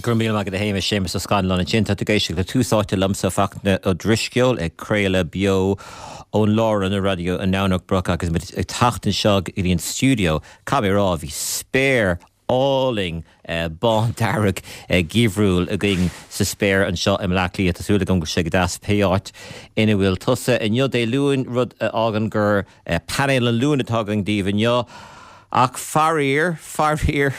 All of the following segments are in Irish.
Go raibh míle maith agat a Shéamais, Séamus Ó Scanláin ansin. Tá tú ag éisteacht le Tús Áite liomsa, Fachtna Ó Drisceoil, ag craoladh beo ón Lárionad Raidió i nDomhnach Broc agus muid ag teacht anseo go dtí an stiúideo. Caithfidh mé a rá, bhí spéir álainn bándearg geimhriúil againn sa spéir anseo i mBleá Cliath. Tá súil agam go bhfuil sé go deas pé áit ina bhfuil tusa inniu, Dé Luain, rud a fhágann gur Painéal an Luain atá againn daoibh inniu. Ach faraor, faraor,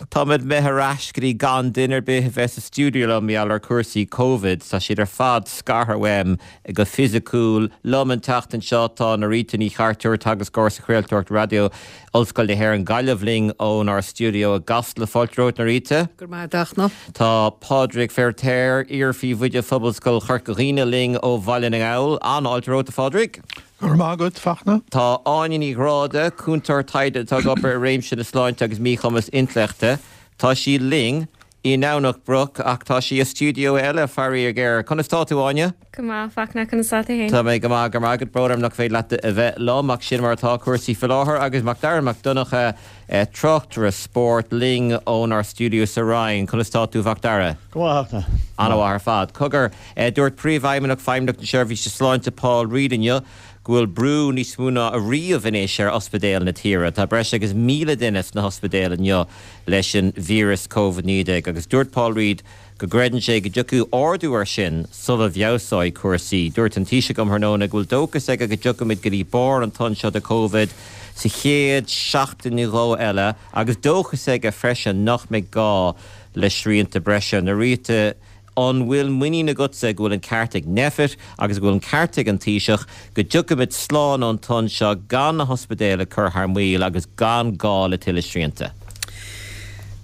táimid imithe ar ais go dtí gan duine ar bith a bheith sa stiúideo liom mar gheall ar chúrsaí Covid. Tá siad ar fad scartha uaim go fisiciúil. Liom an tseachtain seo tá Norita Ní Chartúir, teagascóir sa chraoltóireacht raidió, Ollscoil na hÉireann Gaillimh linn ónár stiúideo i gCasla. Fáilte romhat, Norita. Go raibh maith agat, a Fhachtna. Tá Pádraig Feiritéar, iar-phríomhoide Phobalscoil Chorca Dhuibhne linn ó Bhaile na nGall. An-fháilte romhat, a Phádraig. Go raibh maith agat, Fachtna. Tá Áine Ní Ghráda, cúntóir taighde atá ag obair i réimse na sláinte agus míchumas intleachta. Tá sí linn i nDomhnach Broc ach tá sí i stiúideo eile, faraor géar. Conas tá tú, Áine? Go maith, Fachtna, conas tá tú féin? Tá mé go maith, go raibh maith agat. Brón orm nach féidir leat a bheith liom ach sin mar atá cúrsaí faoi láthair. Agus Macdara Mac Donncha, tráchtaire spóirt, linn ónár stiúideo sa Rinn. Conas tá tú, Mhacdara? Go maith, a Fhachtna. An-mhaith ar fad. Cogar, dúirt Príomhfheidhmeannach Feidhmeannacht na Seirbhíse Sláinte Paul Reid inniu go bhfuil brú níos mó ná ariamh anois ar ospidéil na tíre. Tá breis agus 1,000 duine sna hospidéil inniu leis an víreas Covid-19 agus dúirt Paul Reid go gcreideann sé go dtiocfaidh ardú air sin sula bhfeabhsóidh cúrsaí. Dúirt an Taoiseach um thráthnóna go bhfuil dóchas aige go dtiocfaimid go dtí barr an tonn seo de Covid sa chéad seachtain nó dhó eile agus dóchas aige freisin nach mbeidh gá le srianta breise. Norita, an bhfuil muinín agatsa go bhfuil an ceart ag Nphet agus go bhfuil an ceart ag an Taoiseach go dtiocfaimid slán ón tonn seo gan na hospidéil ag cur thar maoil agus gan gá le tuilleadh srianta?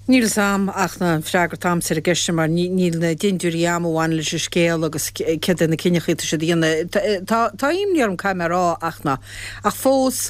Níl fhios a'm ach an freagra atá a'msa ar an gceist sin mar níl na dintiúirí a'm a bhaineann leis an scéal agus céard é na cinneachaí atá siad a dhéanamh. Tá tá imní orm caithfidh mé a rá ach ná ach fós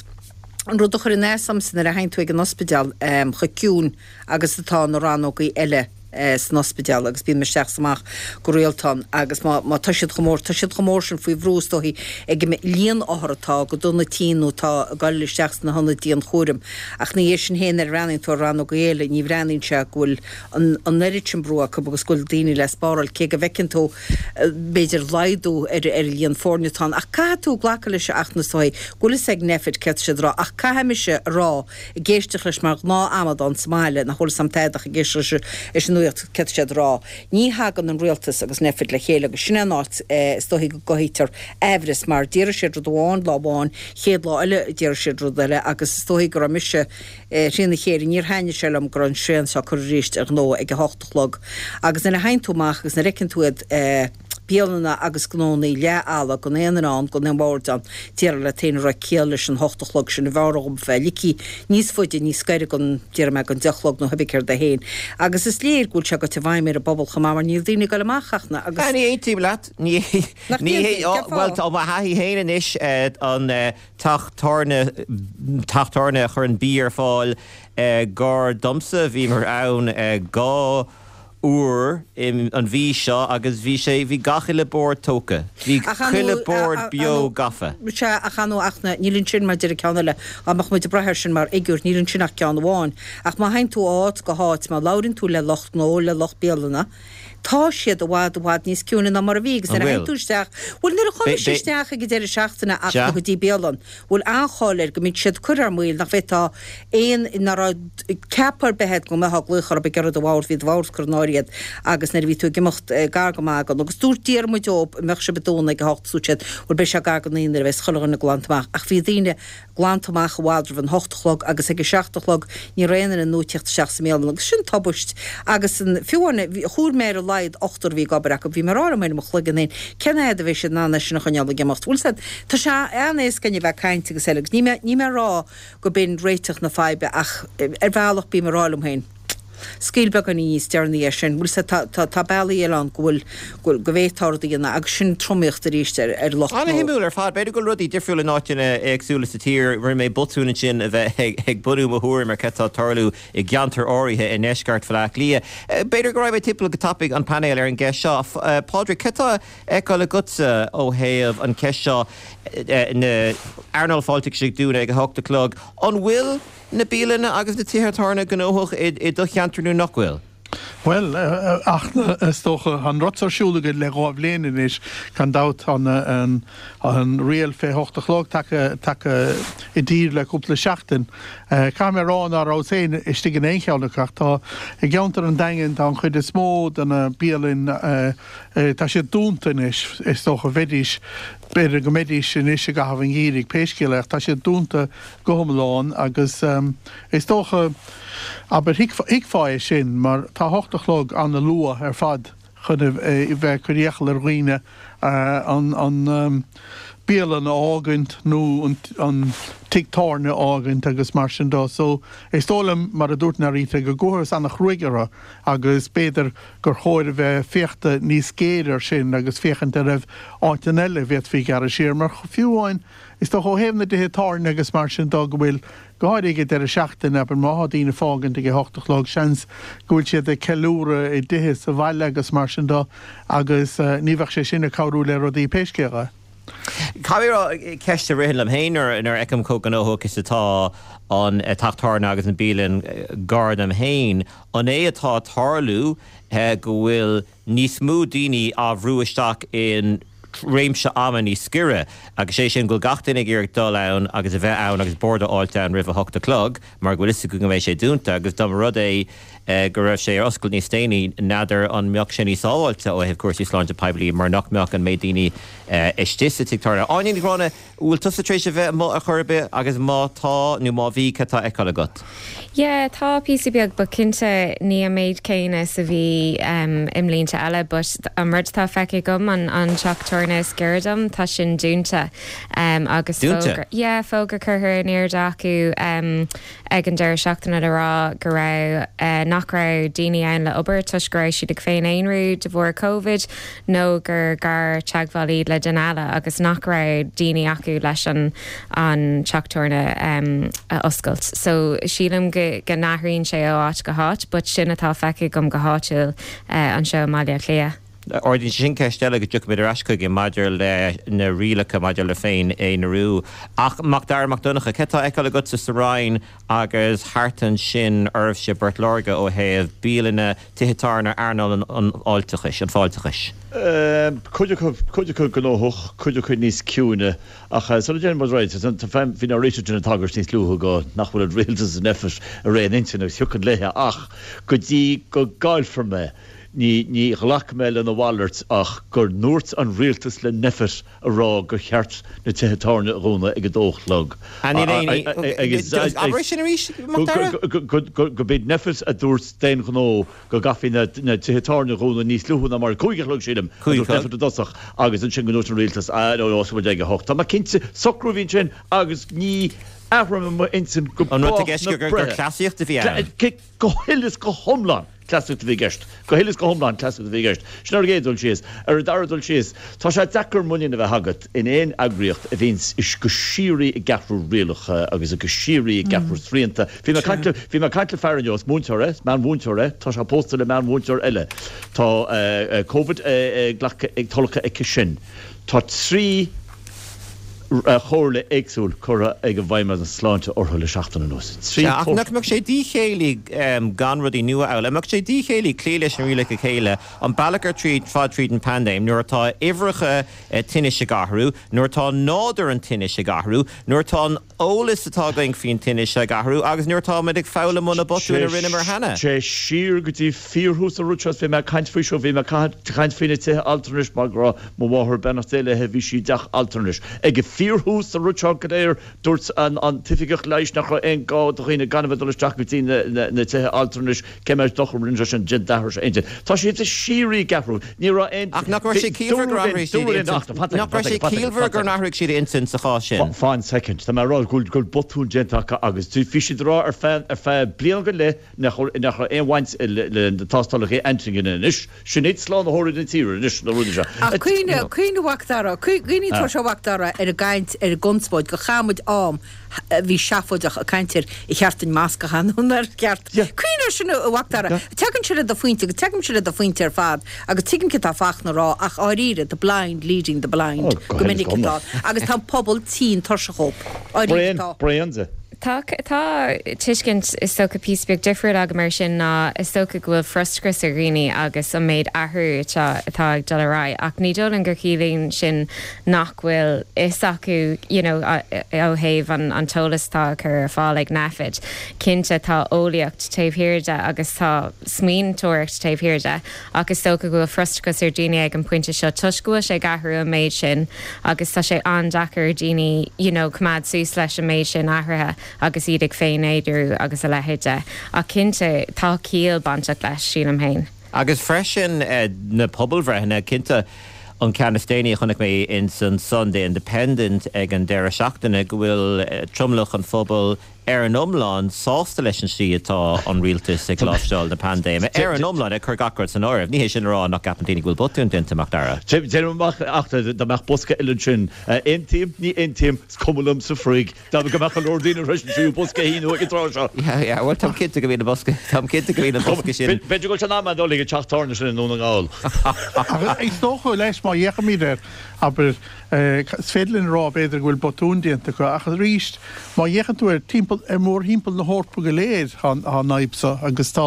an rud a chuireann as domsa nuair a théann tú ag an ospidéal chomh ciúin agus atá na rannógaí eile san ospidéal agus bím isteach is amach go rialta ann agus má má tá siad chomh mór, tá siad chomh mór sin faoi bhrú is dóichí ag an líon othar atá go dona tinn nó atá ag dul isteach sna hionaid dianchúraim. Ach ina dhiaidh sin féin nuair a bhreathnaíonn tú ar rannógaí eile ní bhreathnaíonn sé go bhfuil an an oiread sin brú acu agus go bhfuil daoine le spáráil cé go bhfeiceann tú b'fhéidir laghdú ar ar an líon foirne atá ann. Ach caithfidh tú glacadh leis a Fhachtna is dóichí go bhfuil fhios ag Nphet céard tá siad a rá ach caithfidh mise a rá ag éisteacht leis mar ghnáth-amadán sa mbaile, nach bhfuil fhios a'm tada ach ag éisteacht leis an nuacht, céard tá siad a rá. Ní thagann an rialtas agus Nphet le chéile agus sin é an áit is dóichí go gcothaítear aimhreas mar déarfaidh siad rud amháin lá amháin, chéad lá eile déarfaidh siad rud eile agus is dóichí go raibh mise trína chéile, níor thaitnigh sé liom go raibh an srian seo curtha arís ar ghnó ag a hocht a chlog agus nuair a théann tú amach agus nuair a fheiceann tú iad bialanna agus gnónnaí leath-fholamh, gan aon duine ann, gan aon bhord ann. Déarfá leat féin an raibh ciall leis an hocht a chlog sin, b'fhearr dhom bheith ligthe níos faide, níos gaire don, déarfaidh mé, don deich a chlog nó cibé céard é féin. Agus is léir go bhfuil sé goite i bhfeidhm ar an bpobal chomh maith mar níl daoine ag dul amach ach na, agus. Ní aontaím leat. Ní, Nach ní, n-aontaíonn? Cén bhuel, fáth? tá mo thaithí féin anois, an teach tábhairne, teach tábhairne a chuireann bia ar fáil gar domsa, bhíomar ann 2 uair an mhí seo agus bhí sé, bhí gach uile bord tógtha. Bhí chuile bord beo gafa. Sea, ach ar ndóigh, ach níl ansin mar deir an ceann eile, dá mbeadh muid ag brath air sin mar fhigiúr, níl ansin ach ceann amháin. Ach má théann tú ó áit go háit, má labhraíonn tú le lucht gnó, le lucht bialanna, tá siad i bhfad, i bhfad níos ciúine ná mar a bhí agus An nuair a théann bhfuil? tú isteach, bhuel nuair a chuaigh mise isteach ag an deireadh seachtaine ach go dtí bialann, bhfuil an-cháil air go mbíonn siad curtha ar maoil, nach bhféadfá aon, nach raibh ceapadh ar bith agat go mbeifeá ag glaoch orthu ag iarraidh do bhord, bhí do bhord curtha in áirithe agat agus nuair a bhí tú ag imeacht gar go maith don, agus dúirt, d'iarr muid dóibh an mbeadh sibh ag dúnadh ag a hocht, dúirt siad, bhuel beidh sé gar don naoi nuair a bheas chuile dhuine glanta amach, ach bhí daoine glanta amach i bhfad roimh an hocht a chlog agus ag a seacht a chlog ní raibh aon duine nua ag tíocht isteach sa mbialann agus sin tubaist agus an, fiú amháin, chuala mé ar a laghad ochtar a bhí ag obair acu, bhí mé ag rá liom féin i mo chloigeann féin, cén fhad a bheidh siad in ann é sin a choinneáil ag imeacht? Bhfuil 's a'd, tá sé an-éasca againn a bheith ag caint agus eile agus níl mé, níl mé ag rá go b'in réiteach na faidhbe ach ar bhealach bím ag rá liom féin, scaoil beagáinín níos deireanaí é sin, bhfuil 's a'd, tá, tá, tá bealaí eile ann go bhfuil, go bhfuil, go bhféadfá rud a dhéanamh agus sin tromaíocht arís ar, ar lucht gnó. An-shuimiúil ar fad. B'fhéidir go bhfuil rudaí difriúil in áiteanna éagsúla sa tír. Rinne mé botún ansin a bheith ag, ag bunú mo thuairim ar cad tá ag tarlú i gceantair áirithe i ndeisceart Bhaile Átha Cliath. B'fhéidir go raghaidh mé timpeall go tapaidh an painéal ar an gceist seo. Pádraig, cad tá a fheiceáil agatsa ó thaobh an cheist seo, na earnáil fáilteachais ag dúnadh ag a hocht a chlog. An bhfuil na bialanna agus na tithe tábhairne gnóthach i do cheantar nó nach bhfuil? Bhuel, ach is dócha, tá an rud seo ar siúl againn le 2 bhliain anois, gan dabht, tá an riail fé hocht a chlog tagtha, tagtha i dtír le cúpla seachtain. Caithfidh mé a rá ná rabhas féin istigh in aon cheann acu ach tá, i gceantar an Daingin, tá an chuid is mó de na bialainn, tá siad dúnta anois, is dócha, bheidís, b'fhéidir go mbeidís anois i gcaitheamh an gheimhridh, pé scéal é, ach tá siad dúnta go hiomlán agus is dócha, abair, thuigfeá é sin mar tá a hocht a chlog ana-luath ar fad chun a bheith ag cur iachall ar dhaoine an bialann a fhágaint nó an tigh tábhairne a fhágaint agus mar sin de. So is dóigh liom, mar a dúirt Norita, go gcuathas ana-chruaidh orthu agus b'fhéidir gur chóir a bheith féachta níos géire ar sin agus féachaint an raibh áiteanna eile a bhféadfaí gearradh siar mar fiú amháin Is dócha ó thaobh na dtithe tábhairne agus mar sin de go bhfuil, go háirithe ag an deireadh seachtaine, abair má thá daoine ag fágaint ag a hocht a chlog, seans go bhfuil siad ag ceiliúradh i dtithe sa bhaile agus mar sin de agus ní bheadh sé sin ag cabhrú le rudaí pé scéal é. Caithfidh mé a rá, ceist a ritheann liom féin nuair a fheicim chomh gnóthach is atá an teach tábhairne agus an bialann gar dom féin, an é atá ag tarlú go bhfuil níos mó daoine á bhrú isteach in réimse ama níos giorra, agus sé sin go bhfuil gach duine ag iarraidh dul ann agus a bheith ann agus bord a fháilt ann roimh a hocht a chlog mar go bhfuil fhios acu go mbeidh sé dúnta agus dá mba rud é go raibh sé ar oscailt níos déanaí n'fheadar an mbeadh sé níos sábháilte ó thaobh cúrsaí sláinte poiblí mar nach mbeadh an méid daoine istigh sa tigh tábhairne. Áine Ní Ghráinne, Bhfuil tusa tar éis a bheith amuigh ar chor ar bith agus má tá nó má bhí cad tá á fheiceáil agat? Yeah, tá píosa beag but cinnte ní an méid céanna is a bhí i mblianta eile but an rud atá feicthe agam an an teach tábhairne is giorra dom tá sin dúnta agus Dúnta? fógra yeah fógra curtha in airde acu ag an deireadh seachtaine le rá go raibh, nach raibh daoine ann le obair toisc go raibh siad ag féin-aonrú de bharr Covid nó gur gar-teagmháil iad le duine eile agus nach raibh daoine acu leis an an teach tábhairne a oscailt. So sílim go go n-athraíonn sé ó áit go háit but sin atá feicthe agam go háitiúil anseo i mBaile Átha Cliath. Ardaíonn sé sin ceist eile go dtiocfaimid ar ais chuige maidir le na rialacha maidir le féin-aonarú. Ach Mac Dara Mac Donncha, cad tá á fheiceáil agatsa sa Rinn agus thart ansin oraibhse i bPort Láirge ó thaobh bialanna, tithe tábhairne, earnáil an fháilteachais, an fáilteachais? Cuid acu, cuid acu gnóthach, cuid acu níos ciúine. Ach sula dtéann muid ar aghaidh, bhí Norita ag déanamh tagairt níos luaithe go nach bhfuil an rialtas is Nphet ar aon intinn agus thiocfainn léithe ach go dtí go gcaillfear mé, Ní, ní ghlacfaidh mé lena mhalairt ach go ndúirt an rialtas le Nphet a rá gur cheart na tithe tábhairne a dhúnadh ag a dó a chlog. Abair é sin arís, Mac Dara? Go b'iad Nphet a dúirt d'aon ghnó go gcaithfí na tithe tábhairne a dhúnadh níos luaithe ná mar, cúig a chlog sílim, a dúirt Nphet i dtosach agus ansin go ndúirt an rialtas, ah no, no, osclóidh muid ag a hocht. Tá mé cinnte, socrú a bhí ansin agus ní athróidh mé m'intinn go An rud i bás gceist na gur breithe. cleasaíocht a bhí ann? Go huile is go hiomlán cleasaíocht a bhí i gceist. Go huile is go hiomlán cleasaíocht a bhí i gceist. Sin ar an gcéad dul síos. Ar an dara dul síos, tá sé deacair muinín a bheith agat in aon eagraíocht a bhíonns go síoraí ag athrú rialacha agus go síoraí ag athrú srianta. Bhí mé ag caint le, bhí mé ag caint le fear inniu, is múinteoir é, is meánmhúinteoir é, tá sé pósta le meánmhúinteoir eile. Tá Covid glactha, tolgtha aici sin. Tá 3 chomhairle éagsúil curtha ag an bhFeidhmeannas Sláinte orthu le seachtain anuas. 3 Ach nach mbeadh sé díchéillí gan rudaí nua a fhoghlaim? An mbeadh sé díchéillí cloí leis na rialacha céanna an bealach ar tríd fad tríd an paindéim nuair atá uimhreacha tinnis ag athrú, nuair atá nádúr an tinnis ag athrú, nuair atá an eolas atá againn faoin tinnis ag athrú agus nuair atáimid ag foghlaim ó na botúin a rinneamar cheana. Téigh siar go dtí fíorthús an rud seo, bhí mé ag caint faoi seo, bhí mé ag caint faoi na tithe altranais mar go raibh mo mháthair, beannacht Dé léi, bhí sí i dteach altranais. Ag fíorthús an rud seo go léir, dúirt an t-oifigeach leighis nach raibh aon gá do dhaoine gan a bheith ag dul isteach go dtí na tithe altranais, Cé mhéad dochar a rinne sé sin d'athraigh sé intinn. Tá siad de shíoraí ag athrú. Ní raibh aon. Ach nach raibh sé ciallmhar gur athraigh siad intinn? Nach raibh sé ciallmhar gur athraigh siad intinn sa chás sin? Fan soicind. Tá mé ag rá go bhfuil botún déanta acu agus bhí siad ag rá ar feadh ar feadh bliain go leith nach nach raibh aon bhaint le na tástálacha antigine anois. Sin iad slánaitheoirí na tíre anois na rudaí seo. Ach cuimhnigh, cuimhnigh a Mhac Dara, cuimhnigh tá sé a Mhac Dara ar an gcaint, ar an gconspóid gur chaith muid am a bhí seafóideach ag caint ar ar cheart duinn masc a chaitheamh nó nár cheart. Cuimhnigh air sin a Mhac Dara. Tagann sé le do phointe agus tagaimse le do phointe ar fad agus tuigim céard atá Fachtna a rá ach dháiríre, the blind leading the blind go minic atá agus tá an pobal tinn tuirseach dhóibh. Dháiríre atá. Bréan de. Tá tá tuiscint is dócha píosa beag difriúil agam air sin ná is dócha go bhfuil frustrachas ar dhaoine agus an méid athrú atá atá ag dul ar aghaidh ach ní dóigh liom gur chiallaíonn sin nach bhfuil fhios acu you know ó thaobh an an t-eolas atá á chur ar fáil ag Nphet. Cinnte tá eolaíocht taobh thiar de agus tá smaointeoireacht taobh thiar de ach is dócha go bhfuil frustrachas ar dhaoine ag an bpointe seo toisc go bhfuil sé ag athrú an méid sin agus tá sé an-deacair ar dhaoine you know coimeád suas leis an méid sin athruithe agus iad ag féin-aonrú agus a leithéid de. Ach cinnte tá ciall bainteach leis, sílim féin. Agus freisin na pobalbhreitheanna, cinnte an ceann is déanaí a chonaic mé ins an Sunday Independent ag an deireadh seachtaine go bhfuil tromlach an phobail ar an iomlán, sásta leis an slí atá an rialtas ag láimhseáil na paindéime. Ar an iomlán, ag cur gach rud san áireamh. Ní hé sin a rá nach gceapann daoine go bhfuil botún déanta, Macdara. Déanaim amach ach dá mbeadh bosca eile ansin. Aontaím, ní aontaím, is cuma liom sa fhraoch. Dá go mbeadh go leor daoine tar éis an tríú bosca a shíniú ag an tráth seo. Yeah, yeah, bhuel, táim cinnte go mbíonn an bosca, táim cinnte go mbíonn an bosca sin. B'fhéidir go bhfuil sé in am a dhul ag an teach tábhairne sin i nDún na nGall. Ach is dócha leis, má fhéachaimid air, abair, Is féidir linn a rá, b'fhéidir, go bhfuil botún déanta acu, ach arís, má fhéachann tú ar timpeall, ar mhórthimpeall na hEorpa go léir, tá an fhadhb seo agus tá,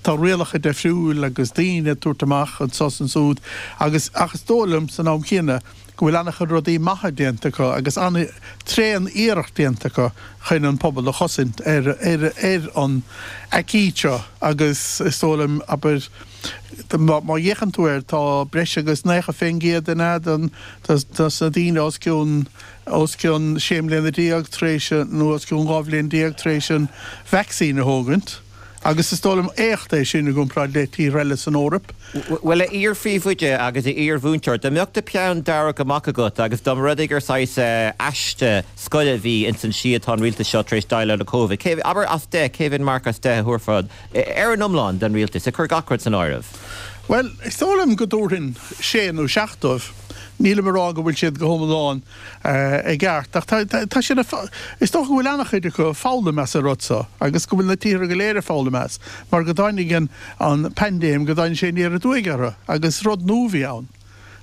tá rialacha deifriúil agus daoine ag tabhairt amach anso is ansúd agus, ach is dóigh liom, san am chéanna, go bhfuil an-chuid rudaí maithe déanta acu agus an-tréan-iarracht déanta acu chun an pobal a chosaint ar, ar, ar an aicíd seo agus is dóigh liom, abair, Má fhéachann tú air, tá breis agus 90% den dos na daoine os cionn os cionn 16 mbliana tar éis nó os cionn 12 bhliain tar éis an vacsaín a thógaint agus is dóigh liom éacht é sin i gcomparáid le tíortha eile san Eoraip. Bhuel, a iar-phríomhoide agus a iar-mhúinteoir, dá mbeadh do pheann dearg amach agat agus dá mba rud é gur saghas aiste scoile a bhí ins an slí atá an rialtas seo tar éis déileáil le Covid, cé, abair as 10, cé mhéad marc as 10 a thabharfá Ar an iomlán, don rialtas, ag cur gach rud san áireamh. Bhuel, is dóigh liom go dtabharfainn sé nó seacht dóibh. Nílim ag rá go bhfuil siad go hiomlán i gceart, ach tá siad ag, is dócha go bhfuil an-chuid acu ag foghlaim as an rud seo agus go bhfuil na tíortha go léir ag foghlaim as, mar go dtáinig an paindéim, go dtáinig sé aniar aduaidh orthu agus rud nua a bhí ann.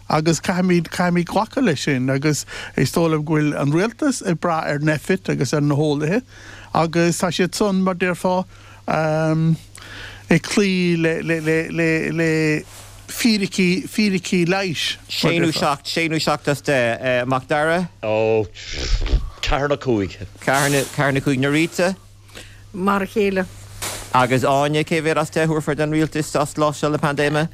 Agus caithfimid, caithfimid glacadh leis sin agus is dóigh liom go bhfuil an rialtas ag brath ar Nphet agus ar na heolaithe agus tá siad san, mar déarfá, ag cloí le fíricí, fíricí leighis, mar Sé nó déarfá. 7, sé nó 7 as 10. Macdara? Ó, ceathair nó cúig. Ceathair nó cúig. Norita? Mar a chéile. Agus Áine, cé mhéad as 10 a thabharfá don rialtas as láimhseáil na paindéime?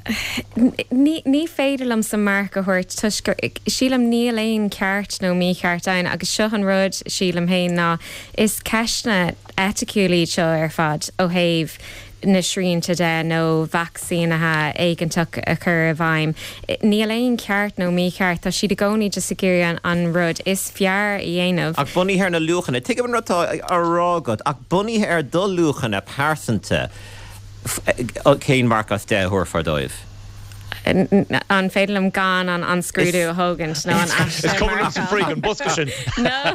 Ní, ní féidir liomsa marc a thabhairt toisc gur, sílim, níl aon ceart nó mícheart ann agus seo an rud, sílim féin, ná is ceisteanna eiticiúil iad seo ar fad ó thaobh na srianta de nó vacsaínithe éigeantach a chur i bhfeidhm. Níl aon cheart nó mícheart, tá siad i gcónaí just ag iarraidh an rud is fearr a dhéanamh. Ach bunaithe ar na luachanna, tuigim an rud atá á rá agat, ach bunaithe ar do luachanna pearsanta, cén marc as 10 a thabharfá dóibh? An féidir liom gan an an scrúdú a thógaint nó an aiste Is cuma liom sa fhraoch an bosca sin. No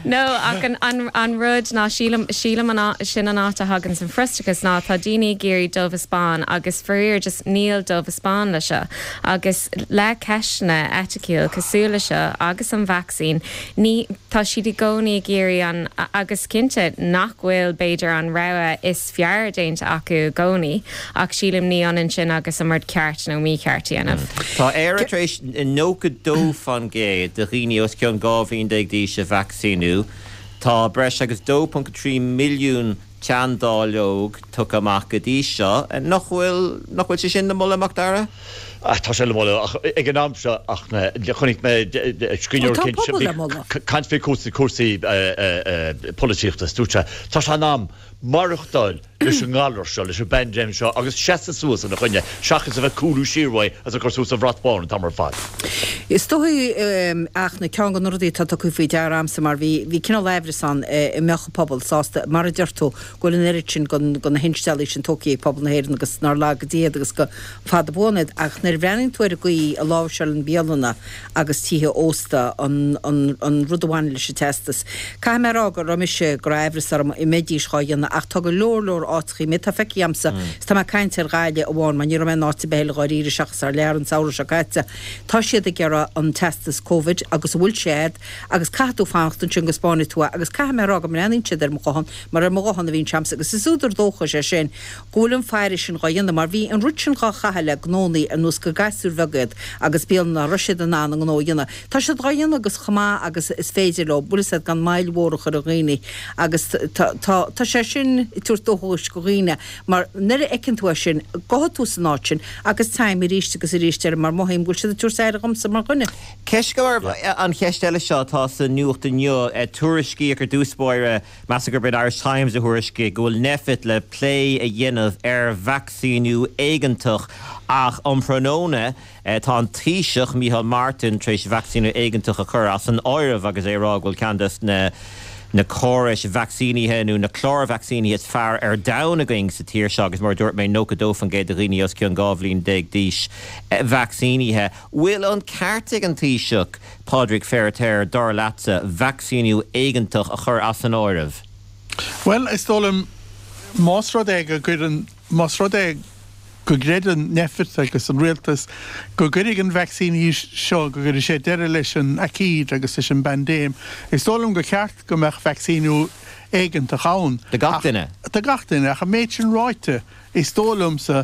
No ach an an an rud ná sílim sílim an sin an áit a thagann an frustrachas ná tá daoine ag iarraidh dubh is bán agus faraor just níl dubh is bán le seo agus le ceisteanna eiticiúil cosúil le seo agus an vacsaín ní tá siad i gcónaí ag iarraidh an agus cinnte nach bhfuil b'fhéidir an rogha is fearr déanta acu i gcónaí, ach sílim ní ionann sin agus an rud ceart nó mícheart a dhéanamh. Tá Éire tar éis 92% de dhaoine os cionn 12 bhliain d'aois a vacsaíniú. Tá breis agus 2.3 milliún teanndáileog tugtha amach go dtí seo. Nach bhfuil, nach bhfuil sé sin le moladh, Macdara? Tá sé le moladh, ach ag an am seo, ach chonaic mé scríbhneoir éicint caint faoi cúrsaí polaitíochta, is dúirt sé, tá sé in am maireachtáil leis an ngalar seo, leis an bpaindéim seo agus seasamh suas ina choinne seachas a bheith ag cúlú siar uaidh agus ag cur suas an bhrat bán an t-am ar fad. Is dóigh ach na ceann de na rudaí atá tugtha faoi deara a'msa mar bhí bhí cineál aimhreas ann an mbeadh an pobal sásta, mar a deir tú, go bhfuil an oiread sin de na hinsteallaí sin tógtha ag pobal na hÉireann agus nár laga Dia iad agus go fada buan iad ach nuair a bhreathnaíonn tú ar an gcaoi a láimhseálann bialanna agus tithe ósta an an rud a bhaineann leis an teastas. Caithfidh mé a rá go raibh mise, go raibh aimhreas orm an mbeidís dhá dhéanamh. dhéanamh ach tá go leor leor áiteachaí, méid atá feicthe a'msa, is tá mé ag caint ar Ghaillimh amháin mar ní raibh mé in áit ar bith eile dháiríre seachas thar lear an samhradh seo caite, tá siad ag iarraidh an teastas Covid agus an bhfuil sé a'd agus caithfidh tú fanacht ansin go spáinfidh tú é agus caithfidh mé a rá go mbreathnaíonn siad ar mo ghuthán mar ar mo ghuthán a bhíonn sé a'msa agus is údar dóchais é sin go bhfuil an faire sin dhá dhéanamh mar bhí an rud sin dhá chaitheamh le gnónnaí ar nós gur gasúir bheaga iad agus bialanna nach raibh siad in ann a ngnó a dhéanamh. Tá siad dhá dhéanamh agus chomh maith agus is féidir leo, bhfuil fhios a'd, gan moill mhór a chur ar dhaoine agus tá, tá, tá sé sin ag tabhairt dóchais go dhaoine mar nuair a fheiceann tú é sin, gabhfaidh tú san áit sin agus téim arís agus arís air mar mothaím go bhfuil siad ag tabhairt aire dhomsa mar dhuine. Ceist go An cheist eile seo atá sa nuacht inniu, tuairiscíodh ar dtús báire, Measaim gurb é an Irish Times a thuairiscigh go bhfuil Nphet le plé a dhéanamh ar vacsaíniú éigeantach ach um thráthnóna tá an Taoiseach, Micheál Martin, tar éis vacsaíniú éigeantach a chur as an áireamh agus é ag rá go bhfuil ceann des na na córais vacsaínithe nó na cláir vacsaínithe is fearr ar domhan againn sa tír seo agus mar a dúirt mé 92% de dhaoine os cionn 12 bhliain d'aois vacsaínithe. Bhfuil an ceart ag an Taoiseach Pádraig Feiritéar, dar leatsa, vacsaíniú éigeantach a chur as an áireamh? Bhuel, is dóigh liom, más rud é go gcuireann, más rud é go gcreideann Nphet agus an rialtas go gcuirfidh an vacsaín seo, go gcuirfidh sé deireadh leis an aicíd agus leis an bpaindéim, is dóigh liom gur cheart go mbeadh vacsaíniú éigeantach ann. Do gach duine. Do gach duine. Ach an méid sin ráite, Is dóigh liomsa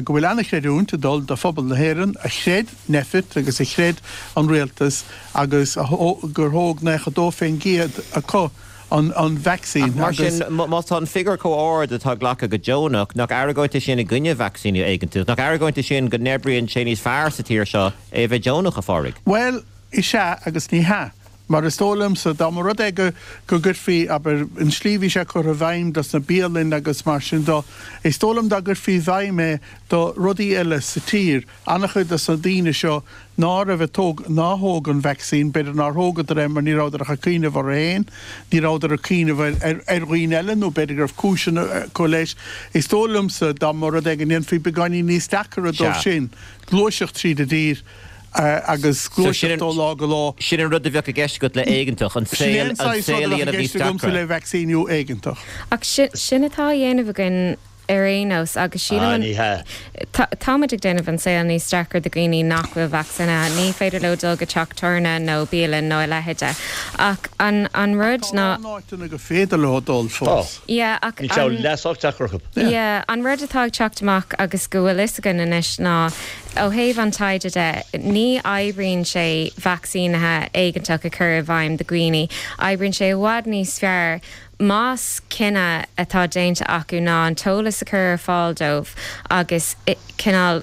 go bhfuil an-chreidiúint ag dul do phobal na hÉireann a chreid Nphet agus a chreid an rialtas agus gur thóg 92% acu an vacsaín Ach mar sin, má tá an figiúr chomh ard atá glactha go deonach, nach argóint é sin i gcoinne vacsaíniú éigeantach? Nach argóint é sin go n-oibríonn sé níos fearr sa tír seo é a bheith deonach, a Phádraig? Bhuel, is ea agus ní hea. Mar is dóigh liomsa, dá mba rud é go go gcuirfí, abair, an slí a bhí sé curtha i bhfeidhm dos na bialainn agus mar sin do, is dóigh liom dá gcuirfí i bhfeidhm é do rudaí eile sa tír, an-chuid dos na daoine seo ná raibh ag tóg, ná thóg an vacsaín, b'fhéidir nár thógadar é mar ní rabhadar ach ag cuimhneamh orthu féin, ní rabhadar ag cuimhneamh ar, ar, ar dhaoine eile nó b'fhéidir go raibh cúiseanna acu leis. Is dóigh liomsa dá mba rud é go ndéanfaí beagáinín níos deacaire dóibh sin gluaiseacht tríd an dtír, agus gluaiseacht ó lá go lá. Sin an rud a bheadh i gceist agat le éigeantach, an saol a dhéanamh níos deacra. le vacsaíniú éigeantach. Ach sin atá á dhéanamh againn ar aon nós agus sílim an. Ní hea. Táimid ag déanamh an saol níos deacra do dhaoine nach bhfuil vacsaínithe. Ní féidir leo dul go teach tábhairne nó bialann nó a leithéide. Ach an rud ná. Tá a lán áiteanna gur féidir leo dul fós. Yeah, ach Níl sé leath sách deacair acu. Yeah, an rud atá ag teacht amach agus go bhfuil fhios againn anois ná Ó thaobh an taighde de, ní oibríonn sé vacsaínithe éigeantach a chur i bhfeidhm do dhaoine. Oibríonn sé i bhfad níos fearr más cinneadh atá déanta acu ná an t-eolas a chur ar fáil dóibh agus cineál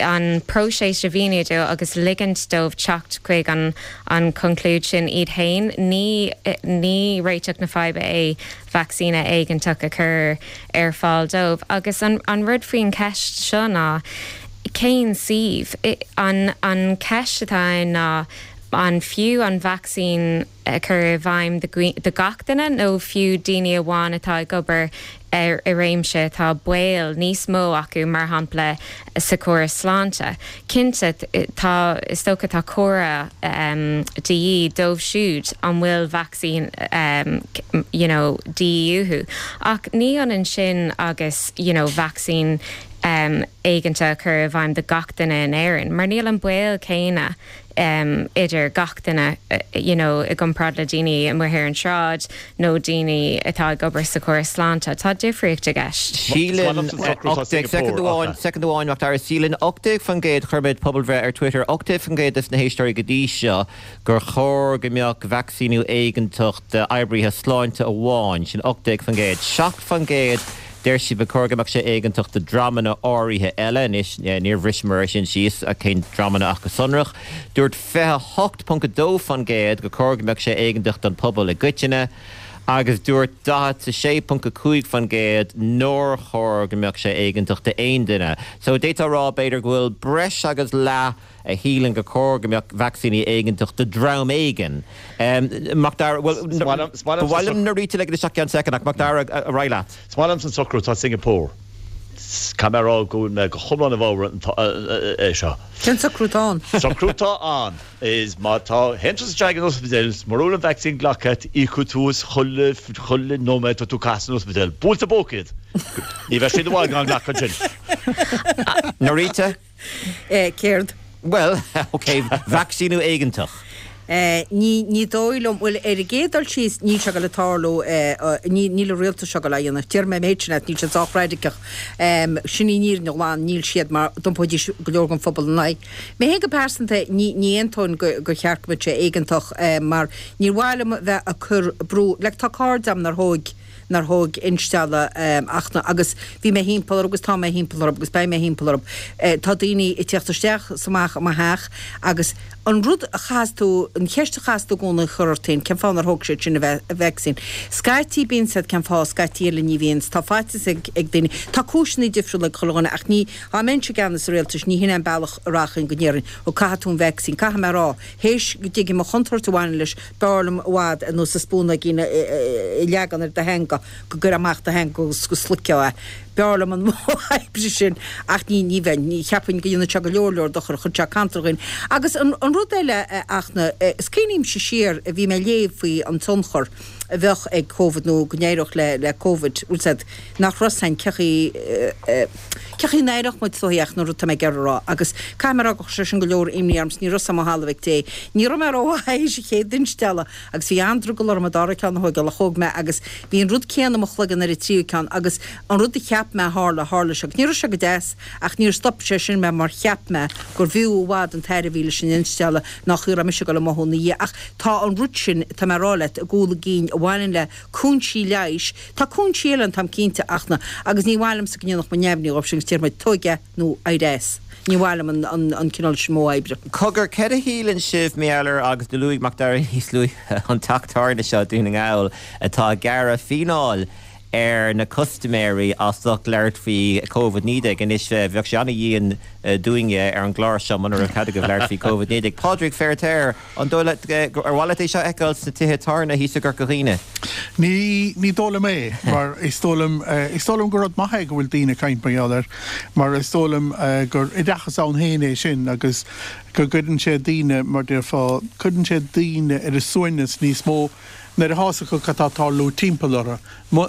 an próiseas a mhíniú dóibh agus ligint dóibh teacht chuig an an chonclúid sin iad féin. Ní ní réiteach na faidhbe é vacsaíne éigeantach a chur ar fáil dóibh. Agus an rud faoin cheist seo ná cén suíomh? An an cheist atá ann ná an fiú an vacsaín a chur i bhfeidhm do gach duine nó fiú daoine amháin atá ag obair i réimse atá baol níos mó acu, mar shampla sa chóras sláinte. Cinnte, tá, is dócha, tá cóir de dhíth dóibh siúd an bhfuil vacsaín you know de dhíth uathu. Ach ní ionann sin agus you know vacsaín éigeantach a chur i bhfeidhm do gach duine in Éirinn, mar níl an baol céanna idir gach duine you know i gcomparáid le daoine amuigh ar an tsráid nó daoine atá ag obair sa chóras sláinte. Tá difríocht i gceist. Síleann 18, soicind amháin, soicind amháin, Mac Dara, síleann 18%, chuir muid pobalbhreith ar Twitter, 18% des na héisteoirí go dtí seo gur chóir go mbeadh vacsaíniú éigeantach d'oibrithe sláinte amháin, sin 18%. 7% Deir siad ba chóir go mbeadh sé éigeantach do dreamanna áirithe eile. Anois, níor bhriseamar é sin síos, cén dreamanna ach go sonrach. Dúirt 28.2% gur chóir go mbeadh sé éigeantach don phobal i gcoitinne agus dúirt 46.5% nár chóir go mbeadh sé éigeantach d'aon duine. So, d'fhéadfá a rá, b'fhéidir, go bhfuil breis agus leath a shíleann gur chóir go mbeadh vacsaíní éigeantach do dhream éigin. Mac Dara, bhuel, ba mhaith liom Norita a ligean isteach i gceann soicind, ach Mac Dara, ar aghaidh leat. Is maith liomsa an socrú atá i Singapore. Caithfidh mé a rá go bhfuil mé go hiomlán i bhfabhar é seo. Cén socrú atá ann? Socrú atá ann is má tá, théann tusa isteach ag an ospidéal is mura bhfuil an vacsaín glactha agat, íocfaidh tú as chuile, chuile nóiméad atá tú ag caitheamh san ospidéal. Buailte i bpóca iad! Ní bheidh siad i bhfad gan glacadh ansin. Norita? Céard? Bhuel, ok, vacsaíniú éigeantach. Ní, ní dóigh liom, bhuel, ar an gcéad dul síos, níl sé ag dul ag tarlú, ní, níl an rialtas seo ag dul á dhéanamh. Déarfaidh mé an méid sin leat, níl siad sách raidiceach. Sin í an fhírinne ghlan, níl siad mar d'iompóidís go leor den phobal ina n-aghaidh. Mé féin go pearsanta, ní, ní aontóinn go, gur cheart go mbeadh sé éigeantach, mar níor mhaith liom a bheith ag cur brú, like tá cairde agam nár thóig, nár thóg instealladh ach na, agus bhí mé thimpeall orthu agus tá mé thimpeall orthu agus beidh mé thimpeall orthu. Tá daoine ag tíocht isteach is amach i mo theach agus an rud a chaithfeas tú, an cheist a chaithfeas tú i gcónaí a chur ort féin, cén fáth nár thóg siad sin an vacsaín? Scaití bíonn siad, cén fáth, scaití eile ní bhíonn. Tá faitíos ag daoine, tá cúiseanna difriúla ag chuile dhuine ach ní, dá mbeinnse i gceannas an rialtais ní hin é an bealach a rachainn go ndéarfainn, ó caithfidh tú an vacsaín, caithfidh mé a rá, théis go dtuigim an chontúirt a bhaineann leis, B'fhearr liom i bhfad ar nós an spúnóigín a leagan ar do theanga, go gcuirfeá amach do theanga agus go sloigfeá é. B'fhearr liom an modh oibre sin ach ní, ní bheinn, ní cheapfainn go ndéanfadh sé go leor leor dochair, chuirfeadh sé cantal ar dhaoine. Agus an, an rud eile, a Fhachtna, is cuimhnímse siar, bhí mé ag léamh faoi an tionchar a bheadh ag Covid nó go n-éireodh le, le Covid, bhfuil 's a'd, nach raibh 's a'inn cé chaoi, cé chaoi a n-éireodh muid is dóigh ach an rud tá mé ag iarraidh a rá agus caithfidh mé a rá gur chuir sé sin go leor imní orm 's ní raibh 's a'm ó thalamh ag Dé. Ní raibh mé rómhaith théis an chéad instealladh agus bhí an-drogall orm an dara ceann a thóigeáil ach thóg mé agus bhí an rud céanna i mo chloigeann ar an tríú ceann agus an rud a cheap mé a tharla, tharla sé agus ní raibh sé go deas ach níor stop sé sin mé mar cheap mé gur bhfiú i bhfad an tairbhe a bhí leis an instealladh ná chaoi a raibh mise ag dul a mothú ina dhiaidh ach tá an rud sin, tá mé a rá leat, i gcúl a gcinn a bhaineann le cúinsí leighis, tá cúinsí eile ann táim cinnte ach na, agus ní mhaith liomsa go ndéanfadh muid neamhní dhóibh sin agus déarfadh muid tóig é nó éirigh as. Ní mhaith liom an, an cineál sin modh oibre. Cogar, céard a shíleann sibh, mar gheall ar, agus do luaigh Mac Dara níos luaithe an teach tábhairne seo i Dún na nGall atá ag gearradh fíneáil ar na custaiméirí as ucht labhairt faoi Covid-19. Anois, bheadh sé an-dhian dúinne ar an gclár seo muna raibh cead agaibh labhairt faoi Covid-19. Pádraig Feiritéar, An dóigh leat, ar mhaith leat é seo a fheiceáil sna tithe tábhairne thíos i gCorca Dhuibhne? Ní, ní dóigh liom é, mar is dóigh liom, is dóigh liom gur rud maith é go bhfuil daoine ag caint mar gheall air, mar is dóigh liom gur oideachas ann féin é sin agus go gcuireann sé daoine, mar déarfá, cuireann sé daoine ar a suaimhneas níos mó nuair atá fhios acu cad tá ag tarlú timpeall orthu.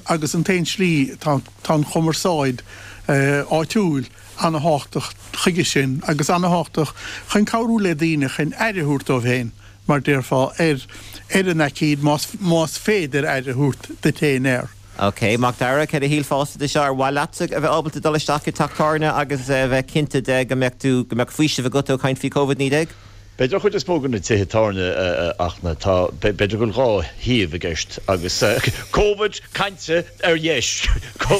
Agus an t-aon slí, tá, tá an chumarsáid áitiúil, ana-thábhachtach chuige sin agus ana-thábhachtach chun cabhrú le daoine chun aire a thabhairt dóibh féin, mar déarfá, ar ar an aicíd, más más féidir aire a thabhairt duit féin air. Ok, Mac Dara, céard a shílfeása de seo? Ar mhaith leatsa a bheith ábalta dul isteach i teach tábhairne agus a bheith cinnte de go mbeadh tú, go mbeadh faoiseamh agat ó chaint faoi Covid-19? B'fhéidir an chuid is mó de na tithe tábhairne ach na, tá, b'fhéidir go bhfuil 2 thaobh i gceist agus Covid cainte ar dheis,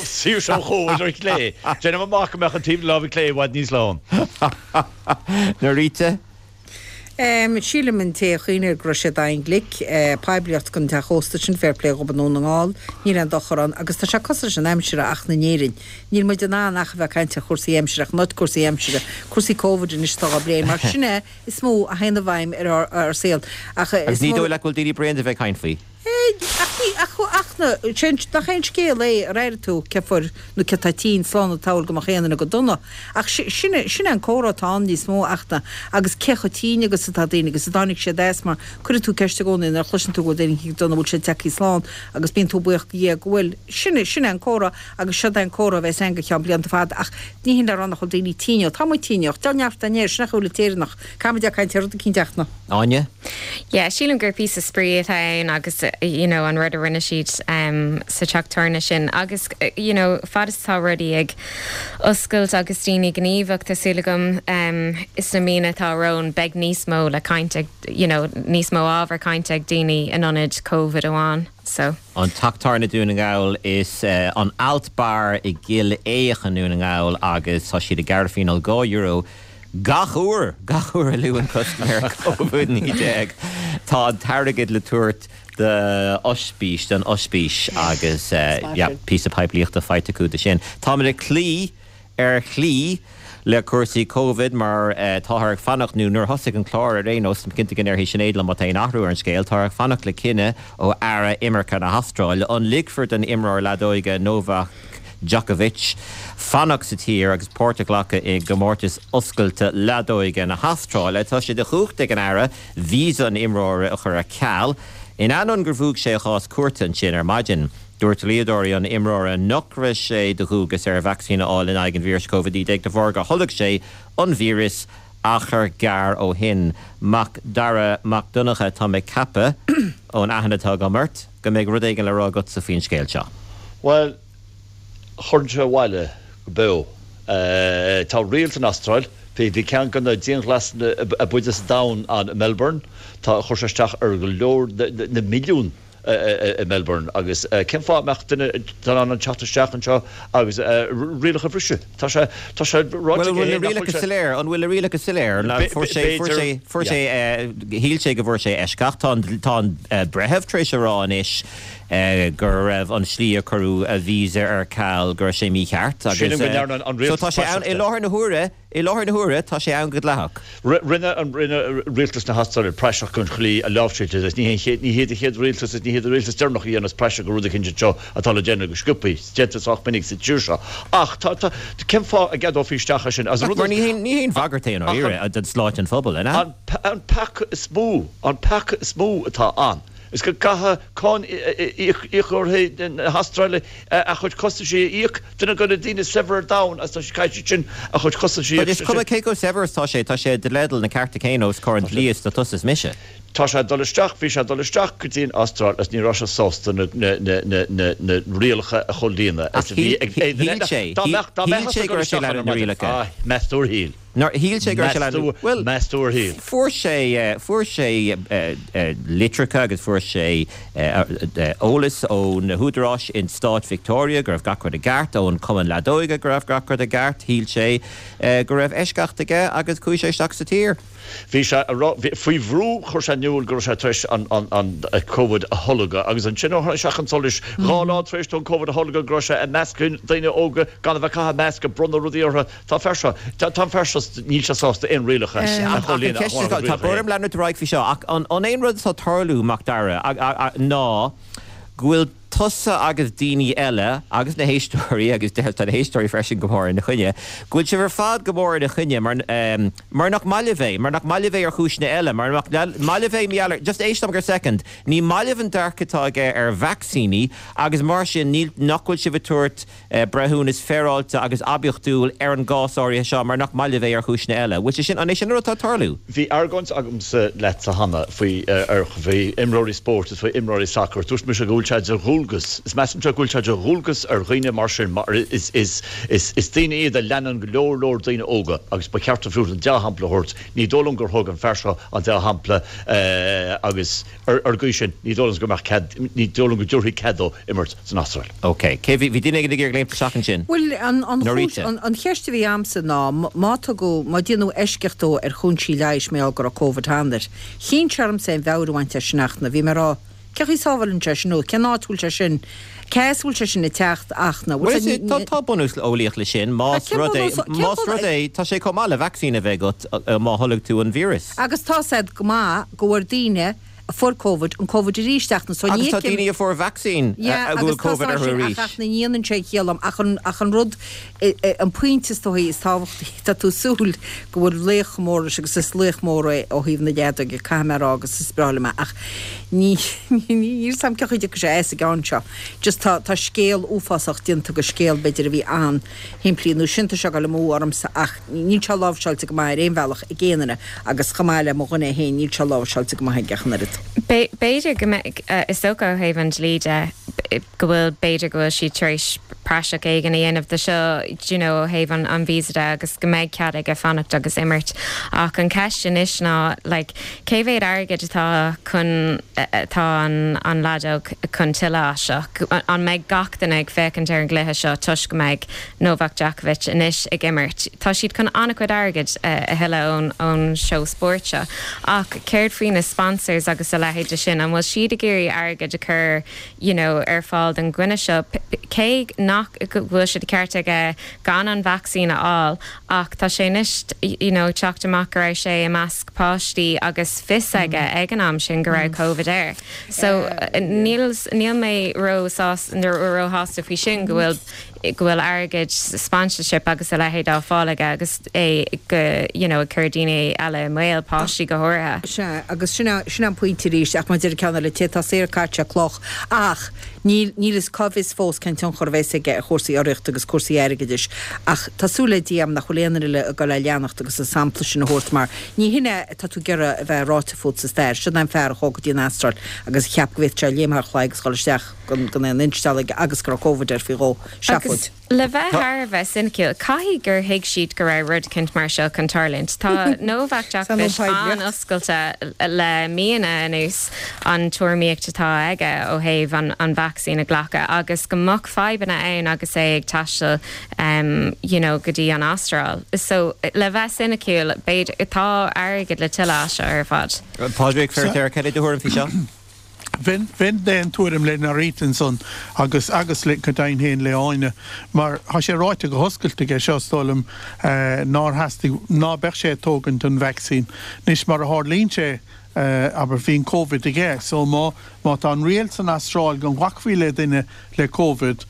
saoirse ó Chóvid ar chlé. Déanaim amach go mbeadh an taobh na láimhe clé i bhfad níos lán. Norita? Sílim an té a chuimhnigh air go raibh sé daingean glic. Poiblíocht don teach ósta sin, fair play dhób i nDún na nGall, níl aon dochar ann agus tá sé cosúil leis an aimsir ach in Éirinn. Níl muid in ann ach a bheith ag caint ar chúrsaí aimsire, ach not cúrsaí aimsire, cúrsaí Covid anois atá á bplé, mar sin é is mó a théann i bhfeidhm ar ár saol. Ach Agus ní dóigh leat go bhfuil daoine bréan de bheith ag caint faoi? Ach ní, ach, ach na, sé an, nach é an scéal é, ar airigh tú cé fuair nó cé tá tinn, slán an tsamhail go mbeadh aon duine go dona. Ach sin é, sin é an comhrá atá ann níos mó ach na, agus cé chomh tinn agus atá daoine agus a dtáinig siad as mar cuireann tú ceist i gcónaí nuair a chloiseann tú go bhfuil daoine go dona, bhfuil siad tagtha slán agus bíonn tú buíoch do Dhia go bhfuil. Sin é, sin é an comhrá. Agus seod é an comhrá a bheas ann go ceann blianta fada ach ní hin le rá nach bhfuil daoine tinn ó tá muid tinn ach deá neart den aer, sin é chuile Éireannach. Caithfimid ag caint ar rud eicínt ach na. Áine? Yeah, sílim gur píosa spraoi atá ann agus you know an rud a rinne siad sa teach tábhairne sin agus you know fad is atá rudaí ag oscailt agus daoine gníomhach tá súil agam sna míonna atá romhainn beidh níos mó le caint ag you know níos mó ábhar cainte ag daoine in ionad Covid amháin so. An Teach Tábhairne Dún na nGall is an Alt Bar i gCill Éacha i nDún na nGall agus tá siad ag gearradh fíneáil €2 gach uair, gach uair a luann custaiméir Covid-19. Tá an t-airgead le tabhairt d'ospís, don ospís agus yeah, píosa poiblíochta faighte acu de sin. Táimid ag cloí Ar shlí, le cúrsaí Covid, mar táthar ag fanacht, nó nuair a thosaigh an clár ar aon nós, táim cinnte go ndéarfaidh Sinéad liom má tá aon athrú ar an scéal, táthar ag fanacht le cinneadh ó Aire Imirce na hAstráile, an ligfear don imreoir leadóige Novak Djokovic fanacht sa tír agus páirt a ghlacadh i gcomórtas oscailte leadóige na hAstráile. Tá sé de chumhacht ag an Aire víosa an imreora a chur ar ceal, in ainneoin gur bhuaigh sé a chás cúirte ansin ar maidin. Dúirt dlíodóirí an imreora nach raibh sé de dhualgas air vacsaín a fháil in aghaidh an víris Covid-19 de bharr gur tholg sé an víreas achar gearr ó shin. Mac Dara Mac Donncha, tá mé ag ceapadh, ón aithne atá agam ort, go mbeidh rud éigin le rá agatsa faoin scéal seo. Bhuel, chuirfinn sé abhaile go beo. Tá riail san Astráil, bhí ceann de na dianghlasanna ab fhaide sa domhan ann i Melbourne, tá, chuir sé isteach ar go leor, na milliúin i Melbourne agus cén fáth a mbeadh duine in ann teacht isteach anseo agus rialacha a bhriseadh? Tá sé, tá sé ráite aige féin nach bhfuil sé. An bhfuil na rialacha soiléir? An bhfuil na rialacha soiléir? Fuair sé, fuair sé, fuair sé, shíl sé go bhfuair sé eisceacht. Tá an, tá an breitheamh tar éis a rá anois go raibh an slí a cuireadh a visa ar ceal, go raibh sé mícheart agus Sílim go ndearna an so rialtas tá sé ann praiseach i de. láthair na huaire, I láthair na huaire, tá sé ann go dleathach. Rinne an rinne rialtas na hAstráile praiseach den tslí a láimhseáil sé. Ní hé ní hiad an chéad rialtas is ní hiad an rialtas deireanach a dhéanas praiseach de rud eicínt anseo atá le déanamh go sciobthaí. Is déanta sách minic sa tír seo. Ach tá tá cén fáth a gceadófaí isteach é sin? As an rud Mar ní haon ní haon bhagairt é i ndáiríre don tsláinte an phobail, an ea? An an peaca is mó an peaca is mó atá ann is go gcaithfidh cáin íocóirí na hAstráile a chuid costaisí a íoc. Duine de na daoine is saibhre ar domhan agus tá sé caithfidh siad sin a chuid costaisí a But is cuma cé chomh saibhir is tá sé, tá sé i dteideal na cearta céanna os comhair an dlí is atá tusa is mise. Tá sé ag dul isteach, bhí sé ag dul isteach go dtí an Astráil agus ní raibh sé sásta na na rialacha a chomhlíonadh Ach is a bhí shíl ag aon duine shíl eile. sé, Dá mbeadh, dá shíl mbeadh sé ag go dul raibh sé isteach lean ar na maidin. rialacha. Ah, meas tú ar shíl? Nár shíl sé go raibh sé Meas lean, tú, bhuel, meas tú ar shíl? fuair sé, fuair sé litreacha agus fuair sé eolas ó na húdaráis in stát Victoria go raibh gach rud i gceart, ón Chumann Leadóige go raibh gach rud i gceart. Shíl sé go raibh eisceacht aige agus chuaigh sé isteach sa tír. Bhí sé a rá, faoi bhrú chuir sé in iúl go raibh sé tar éis an Covid a tholgadh agus ansin ó tháinig sé chun solais dhá lá tar éis dó an Covid a tholgadh go raibh sé i measc daoine óga gan a bheith ag caitheamh masc ag bronnadh rudaí orthu. Tá an fear seo, tá an fear seo, níl sé sásta aon rialacha a chomhlíonadh Ach an cheist is, tá brón orm leanúint ar aghaidh faoi seo, ach an é an rud atá ag tarlú, Mac Dara, ná go bhfuil tusa agus daoine eile, agus na héisteoirí, agus tá na héisteoirí freisin go mór ina choinne, go bhfuil sibh ar fad go mór ina choinne mar, mar nach maith libh é, mar nach maith libh é ar chúiseanna eile, mar nach maith libh é, mar gheall ar, just éist liom go soicind, ní maith libh an dearcadh atá aige ar vacsaíní agus mar sin níl, nach bhfuil sibh ag tabhairt breithiúnas féaráilte agus oibiachtúil ar an gcás áirithe seo mar nach maith libh é ar chúiseanna eile. Bhfuil sé sin, an é sin an rud atá ag tarlú? Bhí argóint agamsa leatsa cheana faoi, ar, faoi imreoirí spóirt is faoi imreoirí sacair. Dúirt mise go bhfuil sé de dhualgas, is measaimse go bhfuil sé de dhualgas ar dhaoine mar sin mar is, is, is, is daoine iad a leanann go leor leor daoine óga agus ba cheart dóibh an dea-shampla a thabhairt. Ní dóigh liom gur thug an fear seo an dea-shampla agus. Ar an gcaoi sin, ní dóigh liom go mbeadh cead, ní dóigh liom go dtabharfaí cead dó imirt san Astráil. Ok. Cé, bhí, bhí duine éigin ag iarraidh léimt isteach ansin? Bhuel, an, an chúis, Norita. an, an cheist a bhí a'msa ná, má tugadh, má déanadh eisceacht dó ar chúinsí leighis mar gheall go raibh Covid cheana air, chinn sé ormsa aon mheabhair a bhaint as sin ach na, bhí mé ag rá, cén chaoi a sábhálann sé sin nó cén áit a bhfuil sé sin, cé as a bhfuil sé sin ag teacht ach na, Bhuel, bhfuil sé, is, tá, tá bunús eolaíoch leis sin, más cén rud é, bunús, cén más bunús, rud é, tá sé chomh maith le vacsaín a bheith agat má tholg tú an víreas. Agus tá said go maith go bhfuair daoine a fuair Covid an Covid arís ach na so Agus ní tá fheicim daoine a fuair vacsaín Yeah a bhfuil agus tá Covid sé orthu sin arís. ach ach na ndéanann sé ciall dom ach an ach an rud an pointe is dóigh is tábhachtaí tá tú ag súil go bhfuil laoch mór leis agus is laoch mór é ó thaobh na leadóige caithfidh mé a rá agus is breá liom é ach ní ní níl 's a'm cén chaoi a dtiocfaidh sé as an gceann seo just tá tá scéal uafásach déanta de scéal b'fhéidir a bhí an-shimplí nó sin tá sé ag dul amú ormsa ach Níl sé láimhseáilte go maith ar aon bhealach ag aon duine agus chomh maith le mo dhuine féin níl sé láimhseáilte go maith aige ach an oiread. B'fhéidir go mbeidh, is dócha ó thaobh an dlí de, go bhfuil, b'fhéidir go bhfuil siad tar éis praiseach éigin a dhéanamh de seo, do you know, ó thaobh an an visa de agus go mbeidh cead aige fanacht agus imirt. Ach an cheist anois ná, like, cé mhéad airgid atá chun, atá an an leadóg chun tuilleadh as seo? An mbeidh gach duine ag féachaint ar an gcluiche seo toisc go mbeidh Novak Djokovic anois ag imirt. Tá siad chun an-chuid airgid a thuilleadh ón seó spóirt seo. Ach céard faoi na sponsors agus a leithéid de sin? An bhfuil siad ag iarraidh airgead a chur you know ar fáil don dhuine seo? Cé nach go bhfuil sé de cheart aige gan an vacsaín a fháil ach tá sé anois you know ag teacht amach go raibh sé i measc páistí agus fios aige ag an am sin go raibh Covid air. So níl níl mé ró-shásta faoi sin go bhfuil. go bhfuil airgead, sponsorship agus a leithéid á fáil aige agus é go, you know, ag cur daoine eile i mbaol, páistí go háirithe. Sea, agus sin é, sin é an pointe arís, ach mar a deir an ceann eile, té atá saor caithfidh sé cloch. Ach níl, níl fhios, cá bhfios fós cén tionchar a bheas aige ar chúrsaí urraíochta agus cúrsaí airgeadais. Ach tá súil le Dia agam nach bhfuil aon duine eile ag dul é leanacht agus an sampla sin a thabhairt mar ní hin é atá tú ag iarraidh a bheith ráite fút sa stair. Sin é an fear a chuaigh go dtí an Astráil agus a cheap go bhféadfadh sé léim thar chlaí agus dhul isteach. gan aon instealladh aige agus go raibh Covid air faoi dhó. Agus Seafóid. le bheith thar a bheith soiniciúil, caithfidh gur thuig siad go raibh rud eicínt mar seo chun tarlúint. Tá Novak Djokovic an-oscailte le míonna anuas an tuairimíocht atá aige ó thaobh an vacsaín a ghlacadh agus go mbeadh fadhbanna ann agus é ag taisteal you know go dtí an Astráil. So le bheith soiniciúil, b'fhéidir, tá airgead le tuilleadh as seo ar fad. Pádraig Feiritéar, cad é do thuairim faoi seo? Bheinn, bheinn d'aon tuairim le Norita ansan agus, agus le, go deimhin féin le Áine, mar tá sé ráite go hoscailte aige seo, is dóigh liom, nár theastaigh, ná beadh sé ag tógaint an vacsaín. Anois, mar a tharlaíonn sé, abair, bhí an Covid aige, so má, má tá an riail san Astráil go nglacfaí le duine le Covid,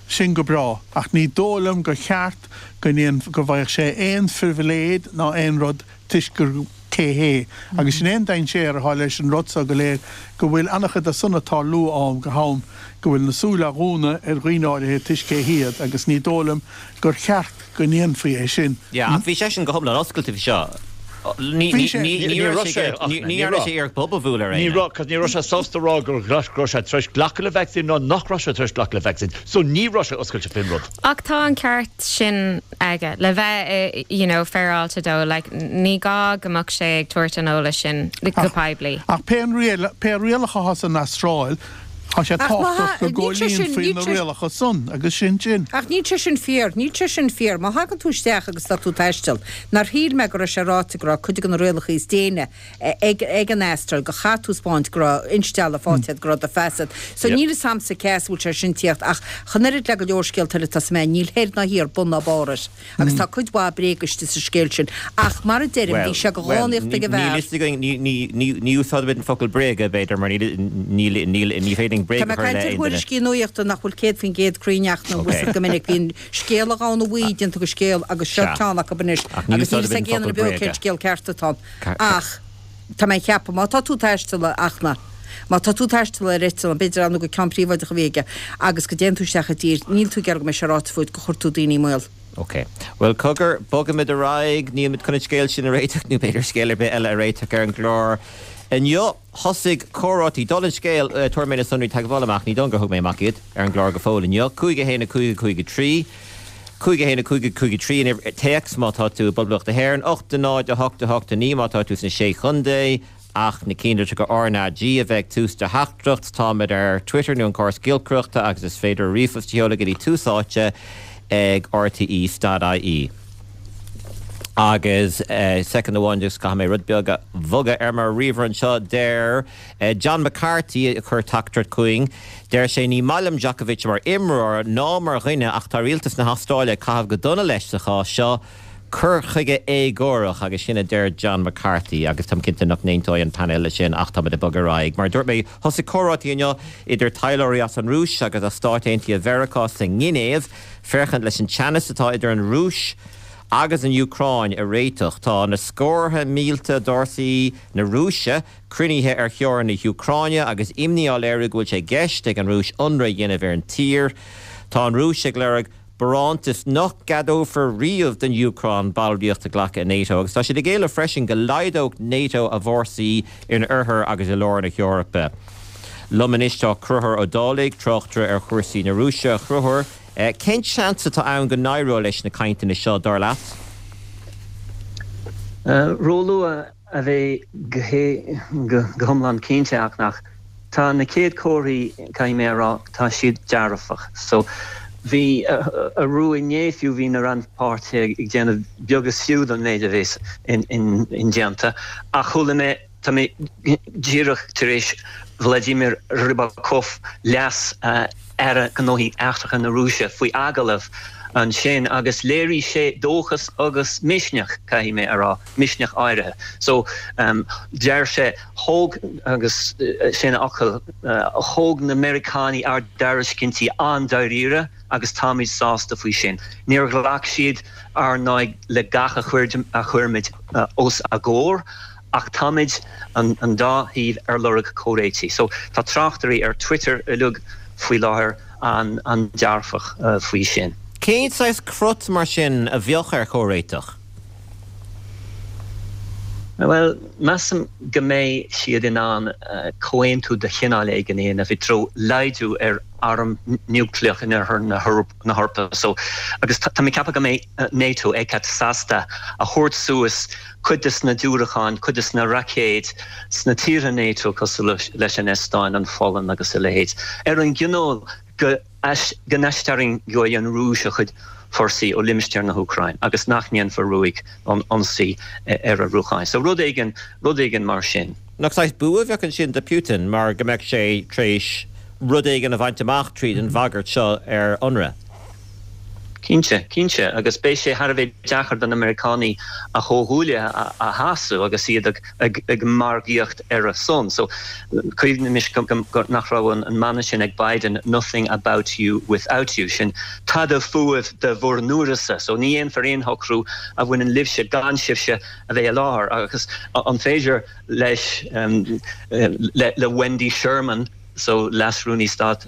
sin go breá, ach ní dóigh liom gur cheart go ndéan, go bhfaigheadh sé aon phribhléid ná aon rud toisc gur. cé hé. Agus sin é an dainséar atá leis an rud so go léir, go bhfuil an-chuid de san ag tarlú ó am go ham, go bhfuil na súile á dhúnadh ar dhaoine áirithe toisc cé hiad, agus ní dóigh liom gur cheart go ndéanfaí é sin. Yeah, ach bhí seisean go hiomlán oscailte faoi seo. Ní Bhí sé. Ní raibh sé, ach ní ní dhearna raibh. sé iarracht bob a bhualadh ar Ní éinne. raibh, cos ní raibh sé sásta rá go raibh sé tar éis glacadh le vacsaín ná nach raibh sé tar éis glacadh le vacsaín. So ní raibh sé oscailte faoin rud. Ach tá an ceart sin aige le bheith you know féaráilte dó, like ní gá go mbeadh sé ag tabhairt an eolais sin go poiblí. Ach pé an riail, pé rialacha atá san Astráil, tá sé Ach má tábhachtach tha, go níl sé sin, gcomhlíonfaí níl na sé, rialacha san agus sin sin. Ach níl sé sin fíor, níl sé sin fíor. Má thagann tú isteach agus tá tú ag taisteal, nár shíl mé go raibh sé ráite go raibh cuid de na rialacha is déine ag an Astráil go chaithfidh tú 'spáint go raibh instealladh faighte agat, go raibh do phas agat. So níl fhios a'msa cé as a bhfuil sé sin tíocht ach chomh oiread le go leor scéalta eile atá sna meáin, níl thoir ná thiar, bun ná barr air. Agus tá cuid mhaith bréaga istigh sa scéal sin. Ach mar a deirim, bhí sé de dhánaíocht ag an Níl bhfear. fhios againn, ní úsáidimid an focal bréaga, b'fhéidir, mar níl, níl, ní féidir linn Tá bréag mé a ag chur i caint leith ar aon duine. thuairiscí nuachta nach bhfuil 100% cruinn ach nó bhfuil siad go minic. Bíonn scéal an ghamhna bhuí déanta de scéal agus seo Sea. ceann acu anois Ach ní agus níl úsáidimid fhios an ag aon focal duine beo bréaga. cén scéal ceart atá ann. Ach tá mé ag ceapadh, má tá tú ag taisteal, a Fhachtna, má tá tú ag taisteal ar eitleán, b'fhéidir ar ndóigh gur ceann príobháideach a bhí aige, agus go dtéann tú isteach i dtír, níl tú ag iarraidh go mbeidh sé ráite fút gur chuir tú daoine i mbaol. Ok. Bhuel, cogar, bogaimid ar aghaidh. Nílimid chun an scéal sin a réiteach, nó b'fhéidir scéal ar bith eile a réiteach ar an gclár inniu. Thosaigh comhráití, dála an scéil, tabharfaidh mé na sonraí teagmhála amach, ní dóigh liom gur thug mé amach iad ar an gclár go fóill inniu. 5 1 5 5 3. 5 1 5 5 3 an uimhir téacs má tá tú i bPoblacht na hÉireann, 8 0 8 8 9 má tá tú sna Sé Chontae, ach na cinnlitreacha RnaG a bheith ag tús do theachtaireacht. Táimid ar Twitter nó an córas giolcaireachta agus is féidir ríomhphost a sheoladh go dtí Tús Áite ag rte.ie. Agus soicind amháin just caithfidh mé rud beag a bhogadh ar mo ríomhaire anseo. Deir John McCarthy a chuir teachtaireacht chugainn, deir sé, Ní maith liom Djokovic mar imreoir ná mar dhuine ach tá rialtas na hAstráile ag caitheamh go dona leis sa chás seo. Cur chuige éagórach agus sin a deir John McCarthy agus táim cinnte nach n-aontóidh an painéal leis sin ach táimid ag bogadh ar aghaidh. Mar a dúirt mé, thosaigh comhráití inniu idir taidhleoirí as an Rúis agus as Stáit Aontaithe Mheiriceá sa nGinéiv féachaint leis an teannas atá idir an Rúis agus an Úcráin a réiteach. Tá na scórtha mílte d'fhórsaí na Rúise cruinnithe ar theorainn na hÚcráine agus imní á léiriú go bhfuil sé i gceist ag an Rúis ionradh a dhéanamh ar an tír. Tá an Rúis ag lorg barántas nach gceadófar riamh don Úcráin ballraíocht a ghlacadh i NATO agus tá siad ag éileamh freisin go laghdódh NATO a bhfórsaí in oirthear agus i lár na hEorpa. Liom anois tá Conchúr Ó Dálaigh, tráchtaire ar chúrsaí na Rúise. A Chonchúir, cén seans atá ann go n-éireoidh leis na cainteanna seo, dar leat? Róluath a bheith go hiomlán cinnte ach nach. Tá na chéad chomharthaí, caithfidh mé a rá, tá siad dearfach. So, bhí, arú inné fiú, bhí na rannpháirtithe ag déanamh beag is fiú don méid a bheas indéanta. Ach chuala mé, tá mé díreach tar éis Vladimir Rybakov, leas Aire Gnóthaí Eachtracha na Rúise, faoi agallamh ansin agus léirigh sé dóchas agus misneach, caithfidh mé a rá. misneach áirithe. So, deir sé, thóg, agus sin a fhocail, thóg na Meiriceánaigh ár dtairiscintí an-dáiríre. agus táimid sásta faoi sin. Níor ghlac siad ar ndóigh le gach a chuirimid os a gcomhair ach táimid, an dá thaobh, ar lorg comhréitigh. So tá tráchtairí ar Twitter uilig faoi láthair an-dearfach faoi sin. Cén saghas crot mar sin a bheadh ar chomhréiteach? Bhuel, measaim go mbeidh siad in ann comhaontú de chineál éigin a dhéanamh i dtreo laghdú ar arm núicléach in oirthear na hEorpa. So, agus tá mé ag ceapadh go mbeidh NATO, ECAT, sásta a thabhairt suas cuid des na diúracáin, cuid des na raicéid sna tíortha NATO cosúil leis an Eastóin, an Pholainn agus a leithéid, ar an gcoinníoll go. go n-aistarraingeoidh an Rúis a chuid forsaí ó limistéar na hÚcráine agus nach ndéanfar ruaig ionsaí ar a Úcráin. So rud éigin, rud éigin mar sin. Nach saghas bua a bheadh ansin do Putin mar go mbeadh sé tar éis rud éigin a bhaint amach tríd an bhagairt seo ar ionradh? Cinnte, cinnte, agus beidh sé thar a bheith deacair do na Meiriceánaigh a chomhghuaillithe a shásamh agus iad ag margaíocht ar a son. So, cuimhnímis nach raibh an mana sin ag Biden, nothing about you without you, sin tada fúibh de bhur n-uireasa. So, ní dhéanfar aon shocrú a bhaineann libhse gan sibhse a bheith i láthair. Agus an féidir leis, le Wendy Sherman, so Leas-Rúnaí Stáit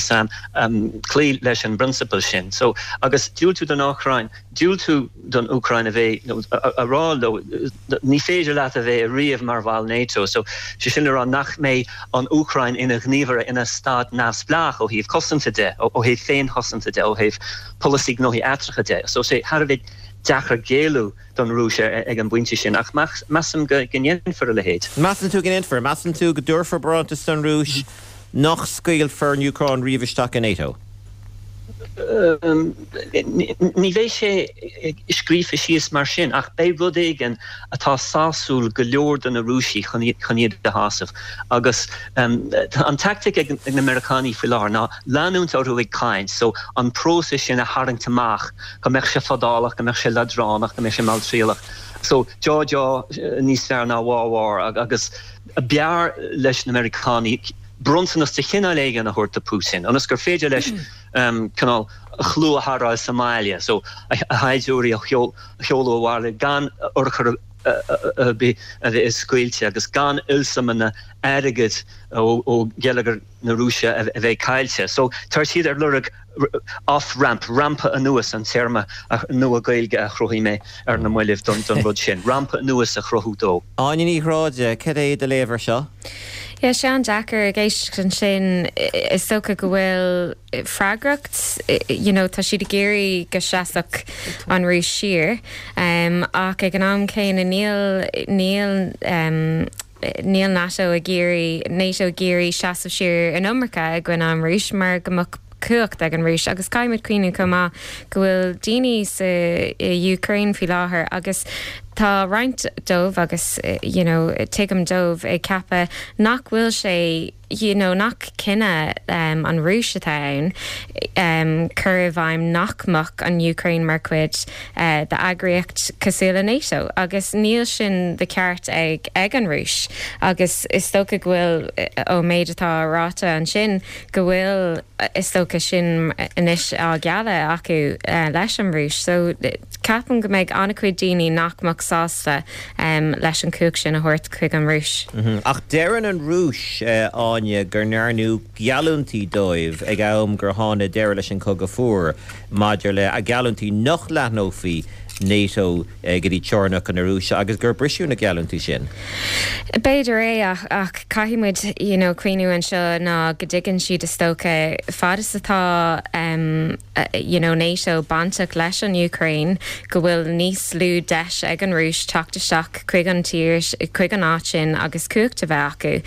sam, cloí leis an bprionsabal sin. So, agus diúltú don Úcráin, diúltú don Úcráin a bheith, nó a rá leo, ní féidir leat a bheith ariamh mar bhall NATO. So, sé sin le rá nach mbeidh an Úcráin ina ghníomhaire, ina stát neamhspleách ó thaobh cosanta de, ó thaobh féinchosanta de, ó thaobh polasaí gnóthaí eachtracha de. So, sé thar a bheith deacair géilleadh don Rúis ag an bpointe sin, ach measaim go ndéanfar a leithéid. Measann tú go ndéanfar? Measann tú go dtabharfar barántas don Rúis nach scaoilfear an Úcráin riamh isteach i NATO? Ní bheidh sé scríofa síos mar sin, ach beidh rud éigin atá sásúil go leor do na Rúisigh chun iad a shásamh. Agus an tactic ag na Meiriceánaigh faoi láthair ná leanúint orthu ag caint, so an próiseas sin a tharraingt amach go mbeadh sé fadálach, go mbeadh sé leadránach, go mbeadh sé malltriallach. So, deá deá níos fearr ná wá wá agus b'fhearr leis na Meiriceánaigh bronntanas de chineál éigin a thabhairt do Putin ionas gur féidir leis cineál a chlú a tharrtháil sa mbaile, so a shaighdiúirí a sheoladh abhaile gan urchar ar bith a bheith scaoilte agus gan ollsuimeanna airgid ó gheilleagar na Rúise a bheith caillte. So tá siad ar lorg off-ramp, rampa anuas an téarma nua Gaeilge a chruthaigh mé ar na mallaibh don rud sin, rampa anuas a chruthú dó. Áine Ní Ghráda, cad é do léamh ar seo? Yeah, sé an-deacair ag éisteacht ansin. Is dócha go bhfuil freagracht, you know, tá siad ag iarraidh go seasfadh an Rúis siar, ach ag an am céanna níl, níl, Níl NATO ag iarraidh NATO ag iarraidh seasamh siar an iomarca i gcoinne an Rúis mar go mbeadh cumhacht ag an Rúis agus caithfidh muid cuimhniú chomh maith go bhfuil daoine sa Úcráin faoi láthair agus tá roinnt dóibh agus you know tuigim dóibh ag ceapadh nach bhfuil sé you know nach cinneadh an Rúis atá ann cur i bhfeidhm nach mbeadh an Úcráin mar chuid d'eagraíocht cosúil le NATO agus níl sin de cheart ag ag an Rúis agus is dócha go bhfuil ón méid atá ráite ansin go bhfuil is dócha sin anois á ghealladh acu leis an Rúis so ceapaim go mbeidh an-chuid daoine nach mbeadh sásta leis an chumhacht sin a thabhairt chuig an Rúis. Ach deireann an Rúis, Áine, go ndearnadh geallúintí dóibh ag am gur tháinig deireadh leis an Chogadh Fuar maidir le geallúintí nach leathnófaí NATO go dtí teorainneacha na Rúise agus gur briseadh na geallúintí sin. B'fhéidir é ach caithfidh muid you know cuimhniú anseo ná go dtuigeann siad is dócha fad is atá you know NATO bainteach leis an Úcráin, go bhfuil níos lú deis ag an Rúis teacht isteach chuig an tír, chuig an áit sin agus cumhacht a bheith acu.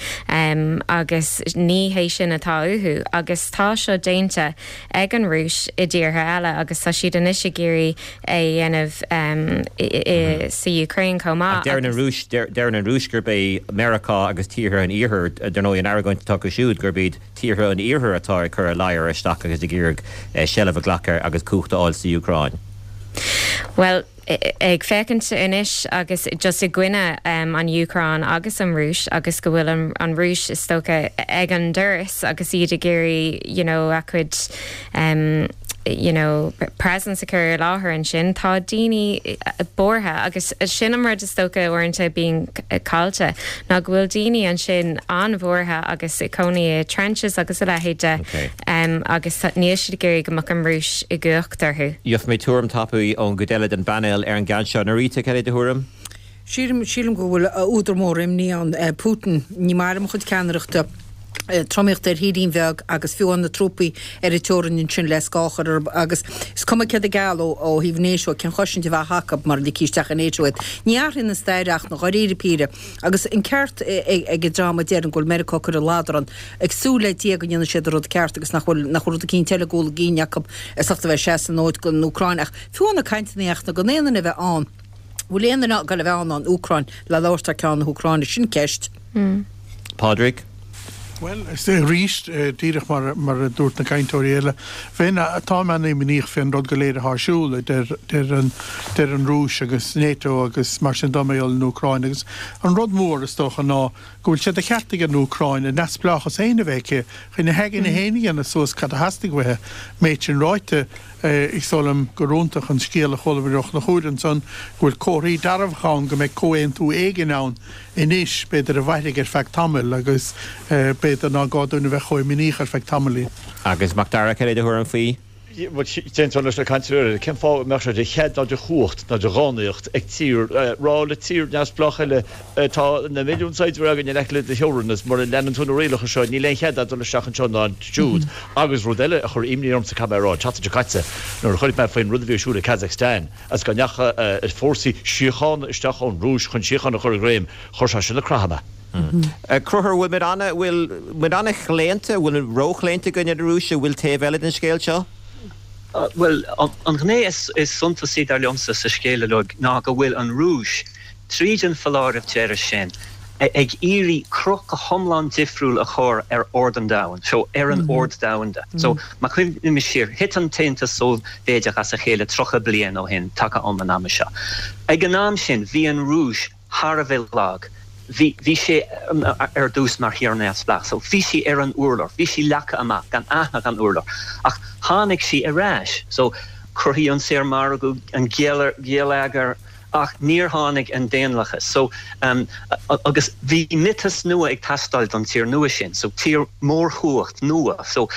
Agus ní hé sin atá uathu. Agus tá seo déanta ag an Rúis i dtíortha eile agus tá siad anois ag iarraidh é a dhéanamh sa Úcráin chomh maith. Ach deireann an Rúis, deireann an Rúis gurb é Meiriceá agus tíortha an Iarthair, dar ndóigh an argóint atá acu siúd, gurb iad tíortha an Iarthair atá ag cur a ladhar isteach agus ag iarraidh seilbh a ghlacadh agus cumhacht a fháil sa Úcráin. Bhuel, ag féachaint anois agus just i gcoinne an Úcráin agus an Rúis agus go bhfuil an Rúis is dócha ag an doras agus iad ag iarraidh you know a cuid. You know, presence a chur i láthair ansin, tá daoine buartha agus sin an rud is dócha uaireanta a bhíonn caillte ná go bhfuil daoine ansin an-bhuartha agus ag cónaí i trenches agus a leithéid de agus níl siad ag iarraidh go mbeadh an Rúis i gcumhacht orthu. Gheobhaidh mé tuairim tapaidh ón gcuid eile den bpainéal ar an gceann seo. Norita, cad é do thuairim? Sílim, sílim go bhfuil údar mór imní ann. Putin, ní maith liom a chuid ceannaireachta, tromaíocht ar thírín bheag agus fiú na trúpaí ar an teorainn ansin le scáth a chur orthu agus is cuma céard a gealladh ó thaobh NATO, cén chosaint a bheadh acu mura ligfí isteach i NATO iad. Ní athraíonn an stair ach na dháiríre píre. Agus an ceart ag an dream a deireann go bhfuil Meiriceá ag cur an ladrann, ag súil le Dia go ndéanfaidh siad an rud ceart agus nach bhfuil, nach bhfuil rud eicínt eile i gcúl a gcinn acu as ucht a bheith ag seasamh an fhóid don Úcráin ach fiú na cainteanna ach na gan aon duine a bheith ann. Bhfuil aon duine ag dul a bheith ann ón Úcráin le labhairt thar ceann na hÚcráine? Sin ceist. Pádraig? Bhuel, arís, díreach mar mar a dúirt na cainteoirí eile, bheinn, táim an-imníoch fén rud go léir atá ar siúl, a deir deir an deir an Rúis agus NATO agus mar sin de mar gheall ar an Úcráin. Agus an rud mór, is dócha, ná go bhfuil sé de cheart ag an Úcráin a neamhspleáchas féin a bheith aici, chun a haigne féin a dhéanamh suas cad a theastaigh uaithi. Méid sin ráite, Is dóigh liom gur iontach an scéal a chuala muid ó Chonchúr ansan, go bhfuil comharthaí dearfacha ann go mbeidh comhaontú éigin ann anois, b'fhéidir a mhairfidh ar feadh tamaill agus b'fhéidir ná gá dúinn a bheith chomh imníoch ar feadh tamaillín. Agus Macdara, cad é do thuairim faoi? Bhuel, d'aontóinn leis na cainteoirí eile. Cén fáth a mbeadh sé de chead ná de chumhacht ná de dhánaíocht ag tír rá le tír neamhspleách eile Tá na milliúin saighdiúir againn in aice le do theorainn agus mura leanann tú na rialacha seo níl aon chead agat dul isteach anseo ná ansiúd. Agus rud eile a chuir imní ormsa, caithfidh mé a rá, an tseachtain seo caite nuair a chuimhnigh mé faoin rud a bhí ar siúl i Kazakhstan agus go ndeachaigh fórsaí síochána isteach ón Rúis chun síocháin a chur i ngreim, chuir sé sin ag croitheadh mé. Conchúr, bhfuil muid ana, bhfuil muid ana-chlaonta, bhfuil muid róchlaonta i gcoinne na Rúise, bhfuil taobh eile den scéal seo? Bhuel, an ghné is suntasaí dar liomsa sa scéal uilig ná go bhfuil an Rúis, tríd an foláireamh deiridh sin, ag iarraidh cruth go hiomlán difriúil a chur ar ord an domhain, so ar an ord domhanda. So, má chuimhnímis siar, thit an tAontas Sóivéadach as a chéile 30 bliain ó shin, taca um an ama seo. Ag an am sin, bhí an Rúis thar a bheith lag. Bhí, bhí sé ar dtús mar thír neamhspleách, so bhí sí ar an urlár, bhí sí leagtha amach, gan aithne gan urlár. Ach tháinig sí ar ais. So, cruthaíodh an saormhargadh, an geilleagar, Ach níor tháinig an daonlathas. So, agus bhí miotas nua ag teastáil don tír nua sin. So, tír mórchumhacht nua. So,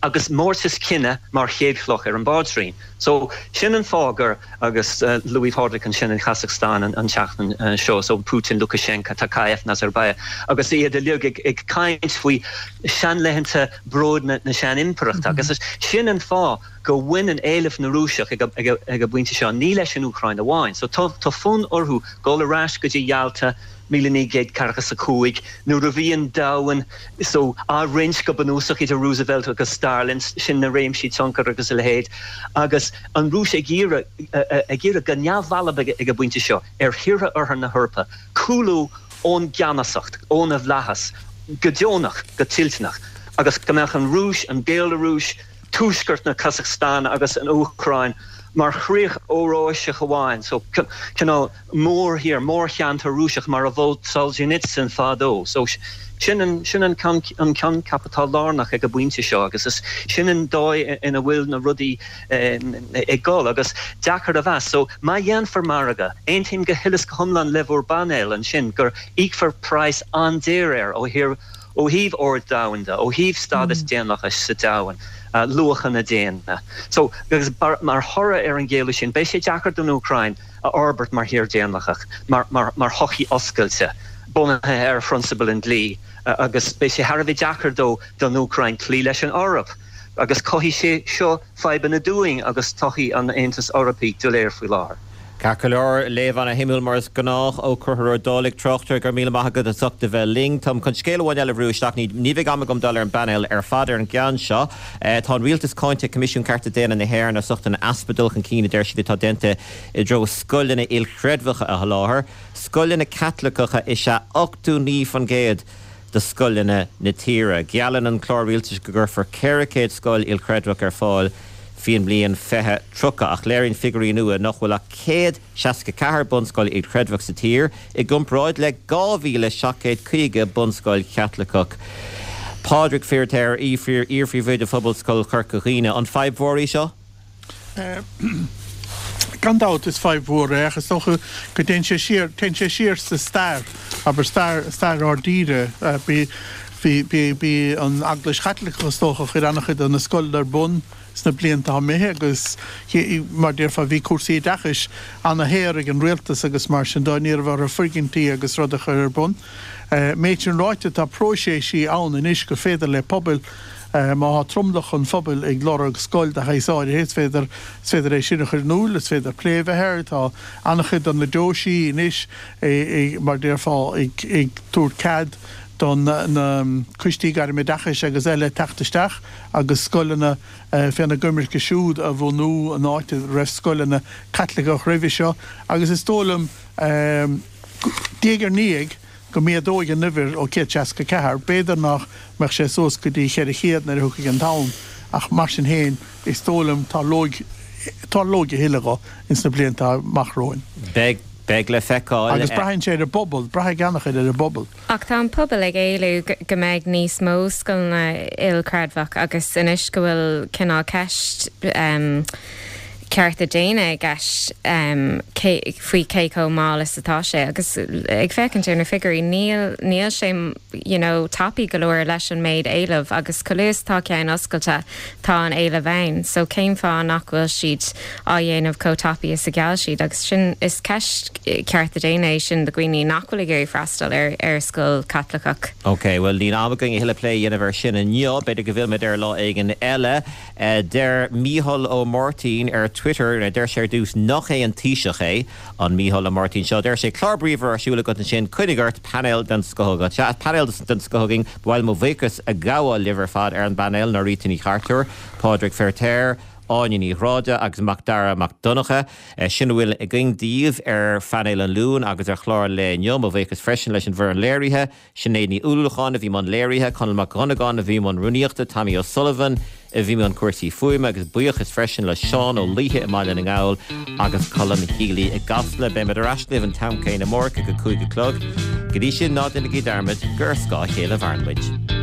agus mórtas cine mar chéad chloch ar an bpaidrín. So, sin an fáth gur, agus luaigh Pádraig ansin an Chasacstáin an tseachtain seo, so Putin, Lukashenka, Tokayev, Nazarbayev, agus iad uilig ag caint faoi seanlaethanta bróid na sean-impireachta. Agus sin an fáth go mbaineann éileamh na Rúiseach ag an bpointe seo ní leis an Úcráin amháin. So tá fonn orthu dul ar ais go dtí Yalta 1945 nuair a bhí an domhan so á roinnt go bunúsach idir Roosevelt agus Stalin, sin na réimsí tionchair agus a leithéid, agus an Rúis ag iarraidh ag iarraidh go neamhbhalbh ag an bpointe seo ar thíortha Oirthear na hEorpa cúlú ón gceannasacht, óna bhflaitheas, go deonach, go toilteanach, agus go mbeadh an Rúis, an Bhéalarúis, tuaisceart na Casacstáine agus an Úcráin mar chríoch Eoráiseach amháin, so cineál mórthír, mórcheantar Rúiseach mar a mhol Solzhenitsyn fadó. So sin an, sin an coincheap atá lárnach ag an bpointe seo agus is sin an dóigh ina bhfuil na rudaí ag dul agus deacair a mheas. So má dhéanfar margadh, aontaím go huile is go hiomlán le bhur bpainéal ansin gur íocfar praghas an-daor air ó thaobh Ó thaobh ord domhanda, ó thaobh stádas daonlathais sa domhan, luachanna daonna. So, agus mar thoradh ar an gcéalú sin, beidh sé deacair don Úcráin a fhorbairt mar thír daonlathach, mar, mar, mar shochaí oscailte, bunaithe ar phrionsabail an dlí, agus beidh sé thar a bheith deacair dó, don Úcráin, cloí leis an Eoraip. Agus cothaíonn sé seo fadhbanna dúinn agus todhchaí an Aontais Eorpaigh doiléir faoi láthair. Ceart go leor, léamh ana-shuimiúil mar is gnách ó Chonchúr Ó Dálaigh, tráchtaire, go raibh míle maith agat as ucht a bheith linn. Táim chun scéal amháin eile a bhrú isteach, ní bheidh am agam dul ar an bpainéal ar fad ar an gceann seo. Tá an rialtas cáinte ag Coimisiún Cearta Daonna na hÉireann as ucht an easpa dul chun cinn a deir siad atá déanta i dtreo scoileanna ilchreidmheacha a sholáthar. Scoileanna Caitliceacha is ea 89% de scoileanna na tíre. Geallann an clár rialtais go gcuirfear 400 scoil ilchreidmheach ar fáil faoin mbliain 2030, ach léiríonn figiúirí nua nach bhfuil ach 164 bunscoil ilchreidmheach sa tír, i gcomparáid le 2,750 bunscoil Chaitliceach. Pádraig Feiritéar, iar-phríomhoide Phobalscoil Chorca Dhuibhne, an fadhb mhór í seo? Gan dabht is fadhb mhór é ach is dócha go dtéann sé siar, téann sé siar sa stair, abair stair, stair ár dtíre. Bhí, bhí, bhí an Eaglais Chaitliceach is dócha a chuir an-chuid de na scoileanna ar bun sna blianta atá imithe agus mar déarfá bhí cúrsaí oideachais ana-shaor ag an rialtas agus mar sin de ní raibh orthu foirgintí agus rud a chur ar bun. Méid sin ráite tá próiséisí ann anois gur féidir le pobail Má tá tromlach an phobail ag lorg scoil de shaghas áirithe, is féidir, is féidir é sin a chur in iúl, is féidir plé a bheith air. Tá an-chuid de na deoisí anois, mar déarfá, ag tabhairt cead do na coistí gairmoideachais agus eile teacht isteach agus scoileanna féna gcoimirce siúd a bhunú in áit a raibh scoileanna Caitliceach roimhe seo. Agus is dóigh liom, diaidh ar ndiaidh, go méadóidh an uimhir ó 164, b'fhéidir nach mbeadh sé suas go dtí 400 nuair a thiocfaidh an t-am, ach mar sin féin, is dóigh liom, tarlóidh, tarlóidh a thuilleadh dho ins na blianta amach romhainn. Beidh, beidh le feiceáil. Agus braitheann sé ar an bpobal, braithfidh an-chuid ar an bpobal. Ach tá an pobal ag éileamh go mbeidh níos mó scoileanna ilchreidmheach agus anois go bhfuil cineál ceist, cearta daonna i gceist faoi cé chomh mall is atá sé agus ag féachaint ar na figiúirí níl níl sé you know tapaidh go leor leis an méid éileamh agus chomh luath is atá ceann oscailte tá an éileamh ann so cén fáth nach bhfuil siad á dhéanamh chomh tapaidh is a gheall siad agus sin is ceist cearta daonna é sin do dhaoine nach bhfuil ag iarraidh freastal ar ar scoil Chaitliceach. Ok, bhuel níl am againn a thuilleadh plé a dhéanamh ar sin inniu, b'fhéidir go bhfillfimid air lá éigin eile. Deir Mícheál Ó Máirtín ar Twitter, deir sé ar dtús nach é an Taoiseach é an Mícheál Ó Máirtín seo. Deir sé, Clár bríomhar ar siúl agat ansin, coinnigh ort, painéal den scoth agat. Sea, painéal den scoth againn. Ba mhaith liom mo bhuíochas a ghabháil libh ar fad ar an bpainéal, Norita Ní Chartúir, Pádraig Feirtéar, Áine Ní Ghráda agus Macdara Mac Donncha. Sin a bhfuil againn daoibh ar phainéal an Luain agus ar chlár an lae inniu. Mo bhuíochas freisin leis an bhfoireann léirithe, Sinéad Ní Uallacháin a bhí i mbun léirithe, Conall Mac Dhonnagáin a bhí i mbun rúnaíochta, Tommy O'Sullivan a bhí i mbun cúrsaí fuaime agus buíochas freisin le Seán Ó Laoithe i mBaile na nGall agus Colm Healy i gCasla. Beimid ar ais libh an t-am céanna amárach ag a 5 a chlog. Go dtí sin, ná déanaigí dearmad gur ar scáth a chéile a mhaireann muid.